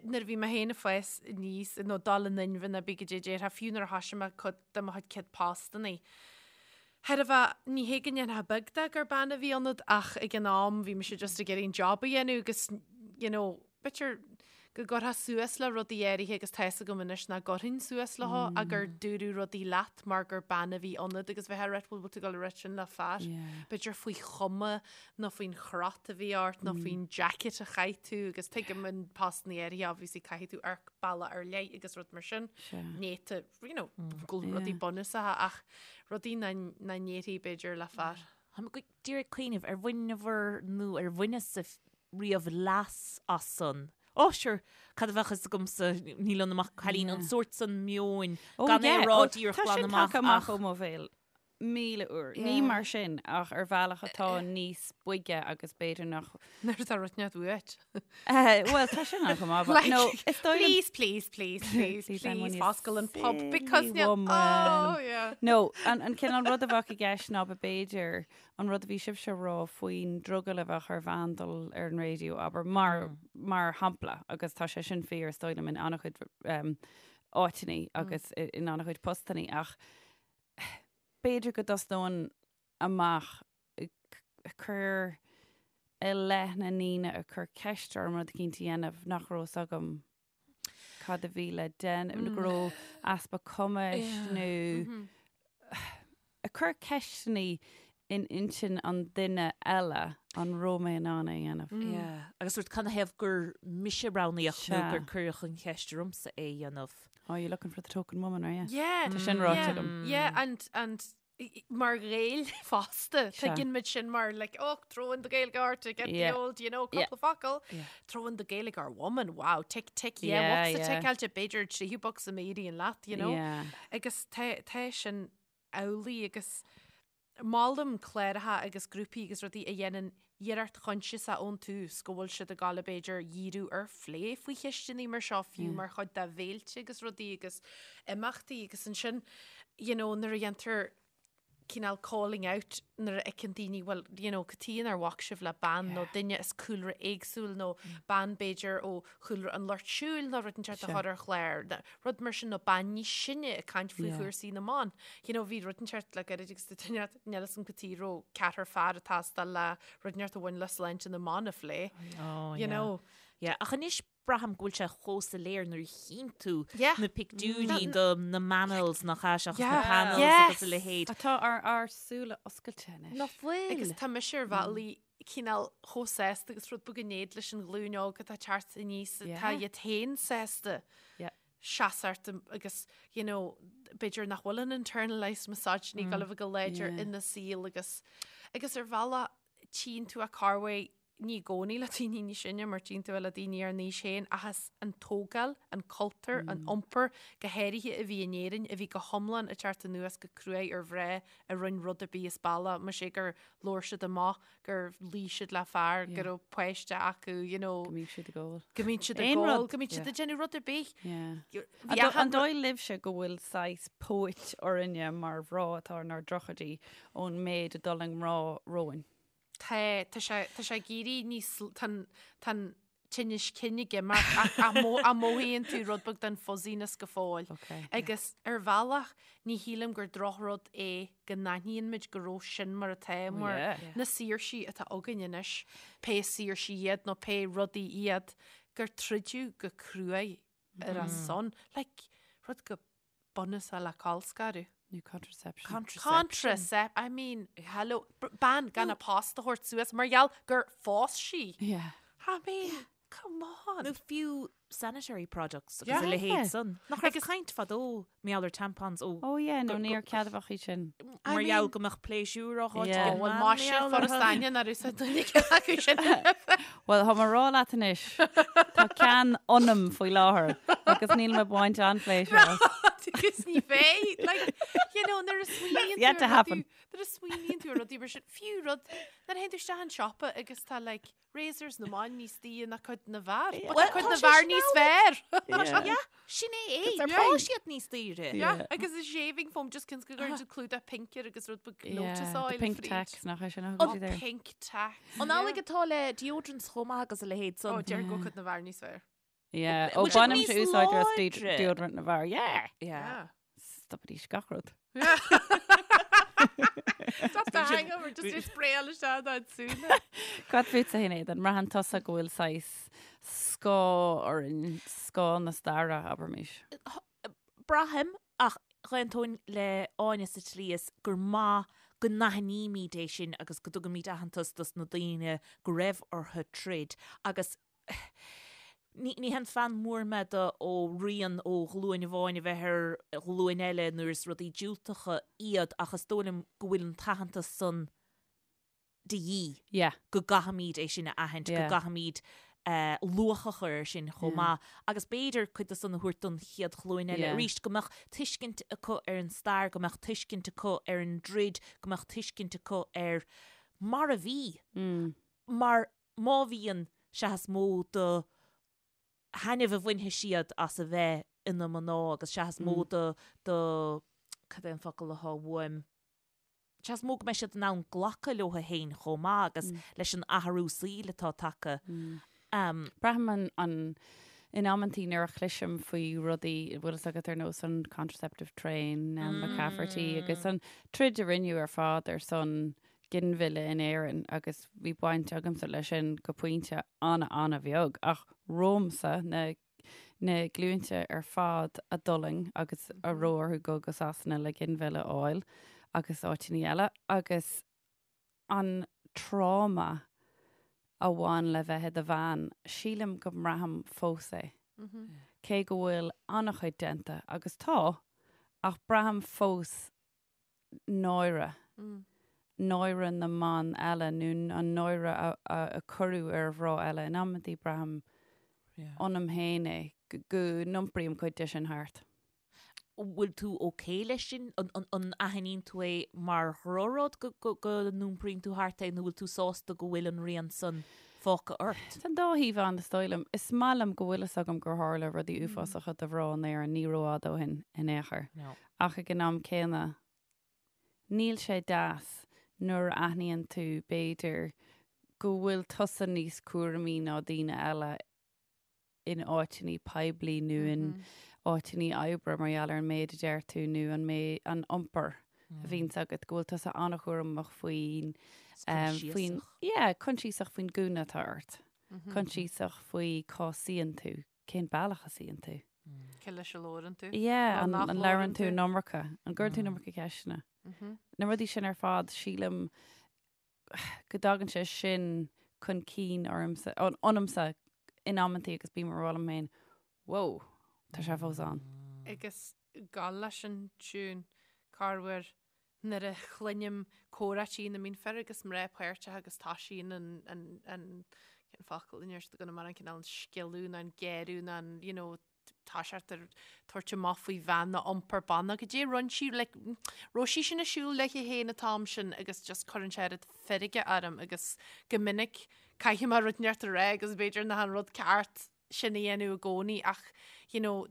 Nuair a bhí mé féin ag fás aníos, nó dul in inmhe nó cibé caidé a déarfá, fiú nuair a thoisigh mé cuid de mo chuid céad postannaí, thairbhe, ní hé go ndéanfá beag de gur bean a bhí ionat ach ag an am bhí mise just ag iarraidh an job a dhéanamh agus, you know, b'fhéidir go gcuirfeá suas le rudaí áirithe agus tá fhios agam anois nach gcuirfinn suas leo ach gur dúradh rudaí leat mar gur bean a bhí ionat agus bheifeá ag rá bhuel bhfuil tú ag dul a rá sin le fear, b'fhéidir faoi chuma nó faoin chrot a bhí ort nó faoin jacket a chaith tú agus tuigim in postannaí áirithe obviously caithfidh tú amharc bealach ar leith agus rud mar sin. Néata, you know, go rudaí bunúsacha ach rudaí nach ndéarfaí b'fhéidir le fear. Tá mé díreach ag cuimhneamh ar bhaineabhair nó ar bhaineas-sa riamh leas as san. Ó, sure, cad a bheadh fhios agamsa, níl ionam ach cailín, an sórt san meoin, gan é a rá díreach Tá glan sin amach tagtha amach ach ó mo bhéal. 1000 uair. Ní mar sin, ach ar bhealach atá níos boige agus b'fhéidir nach. Nuair atá rud inteacht uait. Bhuel, tá sin ann chomh maith, but Like, no, is dóigh liom. Please, please, please, please, Please, I'm please, only a foscail an pub because silly níl- woman. Oh, yeah. No, an, an cineál rud a bheadh i gceist ná b'fhéidir an rud a bhí sibhse a rá faoin drogall a bheadh ar bhean dul ar an raidió, abair, mar, mar shampla, agus tá sé sin fíor, is dóigh liom, in an-chuid um, áiteannaí agus in an-chuid postannaí, ach b'fhéidir go dtosnóinn amach ag cur i leith na ndaoine a chuir ceist orm rud eicínt a dhéanamh nach raibh fhios agam cad a bhí le déanamh, nó go raibh easpa cumais nó ag cur ceisteannaí in intinn an duine eile an raibh mé in ann é a dhéanamh. Yeah. Agus sórt canathaobh gur mise a roghnaíodh nó gur cuireadh an cheist ormsa é a dhéanamh. Oh, you're looking for the token woman, are you? Yeah. Tá sin ráite yeah, agam. Yeah, and, and mar Ghaeil fosta, Sea. tuigeann muid sin mar like, oh, throw in the Gaeilgeoir to get Yeah. the old, you know, Yeah. cúpla focal. Throw in the Gaeilgeoir woman, wow, tick, tick, yeah, Yeah, bocsa yeah. ticeáilte, b'fhéidir tríú bocsa má éiríonn leat, you know. Yeah. Agus tá, tá sin amhlaidh agus. Molaim cláracha agus grúpaí agus rudaí a dhéanann iarracht choinsiasach ón tús go bhfuil siad ag gabháil b'fhéidir dhíriú ar phlé faoi cheisteanna mar seo fiú mar chuid de bhféilte agus rudaí agus imeachtaí agus ansin you know nuair a dhéantar cineál calling out nuair a fheiceann daoine bhuel you know cad chuige nár bhac sibh le bean nó duine as cúlra éagsúil nó bean b'fhéidir ó chúlra an lucht siúil nó rud inteacht a chur ar chlár, rud mar sin nó bean níos sine ag caint faoi chúrsaí na mban. You know, bhí rud inteacht le gairid agus duine níl 'fhios a'm cad chuige raibh ceathrar fear ag teastáil le rud inteacht a bhain le sláinte na mban a phlé. Oh, You know. Yeah, ach anois braithim go bhfuil sé chomh soiléir nuair a chíonn tú Yeah. na pictiúirí do na manels nach ea seachas na Yeah. panels Yes. agus a leithéid. Tá ár ár súile oscailte anois. Nach bhfuil? Agus tá mise ar bhealaí cineál chomh sásta agus rud beag in éad leis an ghlúin óg atá ag teacht aníos atá iad féin sásta seasamh agus you know b'fhéidir nach bhfuil an internalized misogyny ag gabháil a bheith go láidir ina saol agus agus ar bhealach tchíonn tú a corruair ní i gcónaí le daoine níos sine mar tchíonn tú é le daoine ár n-aois féin ach is an tógáil, an cultúr, an iompar go háirithe a bhí in Éirinn a bhí go hiomlán ag teacht anuas go cruaidh ar mhná a rinne rud ar bith as bealach, más é gur labhair siad amach, gur luigh siad le fear, go raibh páiste acu, you know. Go mbíodh siad ag ól. Go mbíodh siad ag ól, go mbíodh siad ag déanamh rud ar bith. An dóigh libhse go bhfuil saghas póit orainne mar mhná atá inár dtríochaidí ón méid a d'fhulaing mná romhainn? Tá, tá sé, tá sé ag éirí níos, tá an, tá an tinneas cinn ag imeacht ach, ach mo, ach mothaíonn tú rud beag den fuzziness go fóill. Okay. Agus ar bhealach, ní shílim gur drochrud é go n-aithníonn muid go raibh sin mar atá, mar yeah. na saoirsí atá againn anois, pé saoirsí iad nó pé rudaí iad, gur troideadh go cruaidh ar a son. Like, rud chomh bunúsach le colscaradh. Nó contraception. Contraception. Contracept, I mean, hello, bean gan a post a thabhairt suas mar gheall gur phós sí. Yeah. I mean, come on. Nó fiú sanitary products agus Yeah. a leithéid san. Nach raibh caint fadó mar gheall ar tampons ó Oh yeah, nó níor ceadmhach iad sin. I mar gheall mean- go mbeadh pléisiúr á thabhairt Yeah. ag an Bhuel, mbean má sin mar gheall foras orthu. aine nár úsáid duine acu sin. Bhuel, tá mé ag rá leat anois, tá ceann ionam faoi láthair agus níl mé ag baint an-phléisiúr as. Agus ní bheidh, like, you know, nuair a smaoiníonn Yet tú to ar happen. rudaí- nuair a smaoiníonn tú ar rudaí mar sin, fiú rud, nuair a théann tú isteach an siopa agus tá, like, razors na mban níos daoire ná cuid na bhfear. But tá Well, cuid tá na sé bhfear sin níos amhlaidh. fearr. Yeah, sin é é. They're Tá siad níos daoire. Yeah, agus an shaving foam just cionn is go gcuireann siad clúdach pink air agus rud beag lotus Yeah, oil the pink fríd. tax nach é sin a Oh, thugann siad air. pink tax. An amhlaidh atá le deodorants chomh maith agus a leithéid Ó, san. deir go cuid na bhfear níos fearr. Yeah, ó Bhfuil siad bainimse níos úsáid as láidre? deodorant na bhfear. Yeah! Yeah. Stopaidís gach rud. Stop the hangover, just is spraoáil isteach dá súile. Cad fútsa a Shinéad, an mbraitheann tusa go bhfuil saghas scáth orainn, scáth na staire, abraimis? Braithim, ach dh'aontóinn le Áine sa tslí is gur maith go n-aithnímid é sin agus go dtugaimid aitheantas dos na daoine go raibh orthu troid agus ní ní haon fan mór mé de ó rian ó ghlúin amháin a bheith ar ghlúin eile nuair is rudaí diúltacha iad ach is dóigh liom go bhfuil an t-aitheantas san de dhíth. Yeah. Go gcaithfimid é sin a aithint, go Yeah. gcaithfimid eh, luach a chur air sin chomh Yeah. maith agus b'fhéidir cuid de san a thabhairt don chéad ghlúin eile Yeah. arís, go mbeadh tuiscint acu ar an stair, go mbeadh tuiscint acu ar an dtroid, go mbeadh tuiscint acu ar mar a bhí. Mm. Mar má bhíonn, sea is mó de thaitneamh a bhainfidh siad as a bheith ina mná agus sea is mó de, de, cad é an focal atá uaim, sea is mó go mbeidh siad in ann glacadh leo féin chomh maith agus leis an athrú saoil atá tagtha. Braithim an, an, in amantaí nuair a chloisim faoi rudaí, bhfuil fhios agat ar nós an contraceptive train, Nell McCafferty agus an troid a rinneadh ar fad ar son ginmhilleadh in Éirinn agus bhí baint agamsa leis sin go pointe an-an-bheag ach romhamsa na na glúinte ar fad a d'fhulaing agus a raibh orthu dul go Sasana le ginmhilleadh a fháil agus áiteanna eile agus an tráma a bhain le bheith i do bhean, sílim go mbraithim fós é. Cé go bhfuil an-chuid déanta, agus tá, ach braithim fós náire, náire na mban eile nó an náire a cuireadh ar mhná eile. In amantaí braithim ionam féin é, go n-iompraím cuid de sin thart. Bhfuil tú ok leis sin? An aithníonn tú é mar dhrochrud go n-iompraíonn tú thart é nó bhfuil tú sásta go bhfuil an rian san fágtha ort? Tá an dá thaobh ann, is dóigh liom. Is maith liom go bhfuil fhios agam gur tharla rudaí uafásacha do mhná in Éirinn ní rófhada ó shin in aon chor. Ach ag an am céanna, níl sé deas nuair a aithníonn tú, b'fhéidir, go bhfuil tusa níos cúramaí ná daoine eile in áiteanna poiblí nó in áiteanna oibre mar gheall ar an méid a deir tú nó an méid, an iompar a bhíonns agat, go bhfuil tusa an-chúramach faoin, faoin, yeah, coinsiasach faoin gúna atá ort, coinsiasach faoi cá suíonn tú, cén bealach a suíonn tú. Cé leis a labhrann tú? Yeah, an labhrann tú an iomarca, an gcuireann tú an iomarca ceisteanna. Na rudaí sin ar fad, sílim go dtagann sé sin chun cinn ormsa, ionamsa in amantaí agus bím ag rá liom féin, Whoa, tá sé fós ann. Agus gabháil leis an tiún, corruair nuair a chluinim comhráití ina mbíonn fir agus mná páirteach agus toisíonn an, an, an, cén focal in iarracht go mar an cineál an sciolladh nó an géarú nó an, you know, tá sé ag tabhairt amach faoi bhean nó iompar ban nó goidé rinne sí like raibh sí sin ag siúl léi féin an t-am sin agus just cuireann sé oiread feirge orm agus go minic caithfidh mé rud inteacht a rá agus b'fhéidir nach an rud ceart sin a dhéanamh i gcónaí ach you know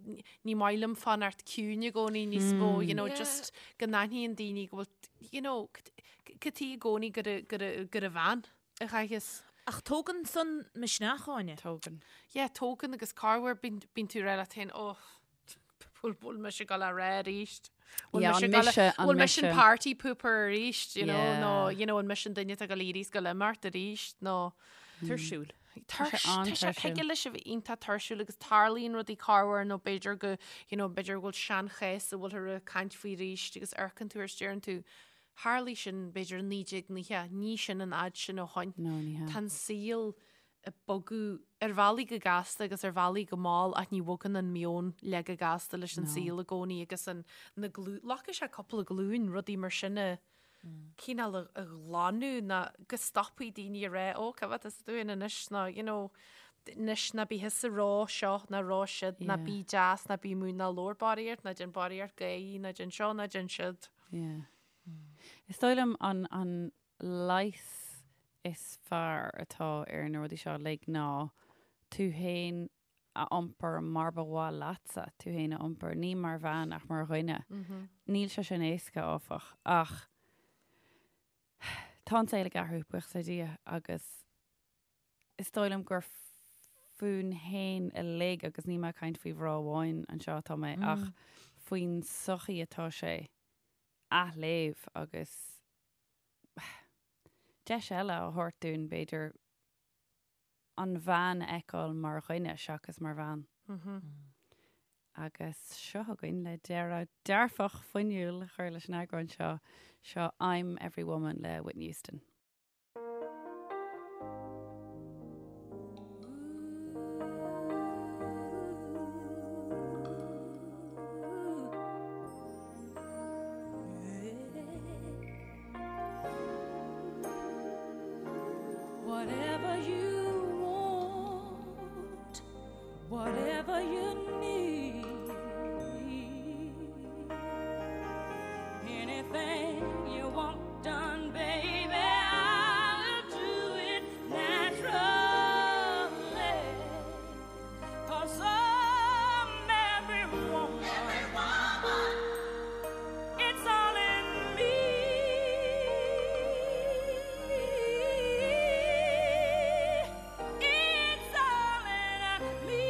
ní maith liom fanacht ciúin i gcónaí níos mó you know just go n-aithníonn daoine go bhfuil you know cad chuige i gcónaí gur gur gur an bhean a chaithfeas. Ach tógann san misneach, Áine. Tógann. Yeah, tógann agus corruair bíonn tú ag rá leat féin, oh, bhfuil bhfuil mise ag gabháil a rá arís? Bhfuil Yeah, mise an ag gabháil mise, an bhfuil mise an mise. party pooper arís, you know, Yeah. nó, you know, an mise an duine atá ag gabháil a éirí is gabháil imeacht arís, nó Tuirsiúil. Tá sé sé an-tuirsiúil. thig leis a bheith iontach tuirsiúil agus tarlaíonn rudaí corruair nó b'fhéidir go, you know, b'fhéidir go bhfuil seanchás a bhfuiltear ag caint faoi arís agus amharcann tú air is deireann tú, Tharlaigh sin, b'fhéidir, i 1990, ní sin an fhad sin ó shoin. No, ní hea. Tá an saol ag bogadh ar bhealaí go gasta agus ar bhealaí go mall ach ní bhogann an meon le go gasta leis an saol i gcónaí agus an, na glú, glacfaidh sé cúpla glúin rudaí mar sin a cineál a, a ghlanadh ná go stopfaidh daoine a rá, ó, cá bhfad is dúinn anois ná, you know, anois ná bí thusa ag rá seo ná rá siúd, ná bí deas, ná bí múin, ná labhair barraíocht, ná déan barraíocht gáirí, ná déan seo, ná déan siúd. Yeah. Is dóigh liom an, an leigheas is fearr atá ar na rudaí seo uilig ná tú féin a iompar mar ba mhaith leatsa tú féin a iompar, ní mar bhean ach mar dhuine. Níl sé sin éasca, áfach, ach tá an saol ag athrú, buíochas le Dia, agus is dóigh liom gur fúinn fhéin uilig, agus níl mé ag caint faoi mhná amháin anseo atá mé, ach faoin sochaí atá sé athléamh agus deis eile a thabhairt dúinn, b'fhéidir, an bhean a fheiceáil mar dhuine seachas mar bhean. Agus seo againn le deireadh dearfach fuinniúil a chur leis an eagrán seo, seo I'm Every Woman le Whitney Houston. Whatever you want, whatever you need, anything you want done, baby, I'll do it naturally. 'Cause I'm every woman. Every woman. It's all in me. It's all in me.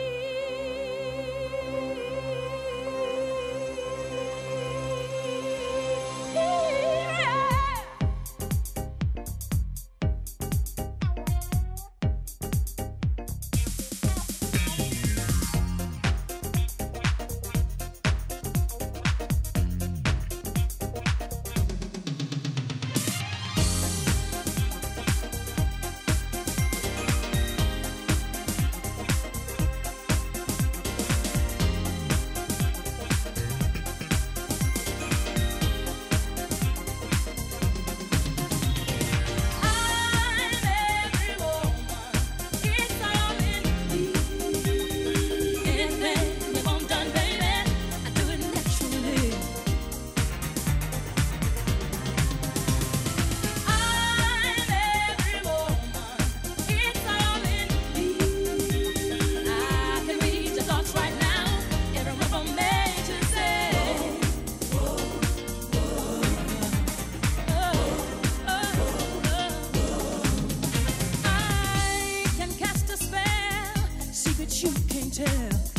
secrets you can't tell.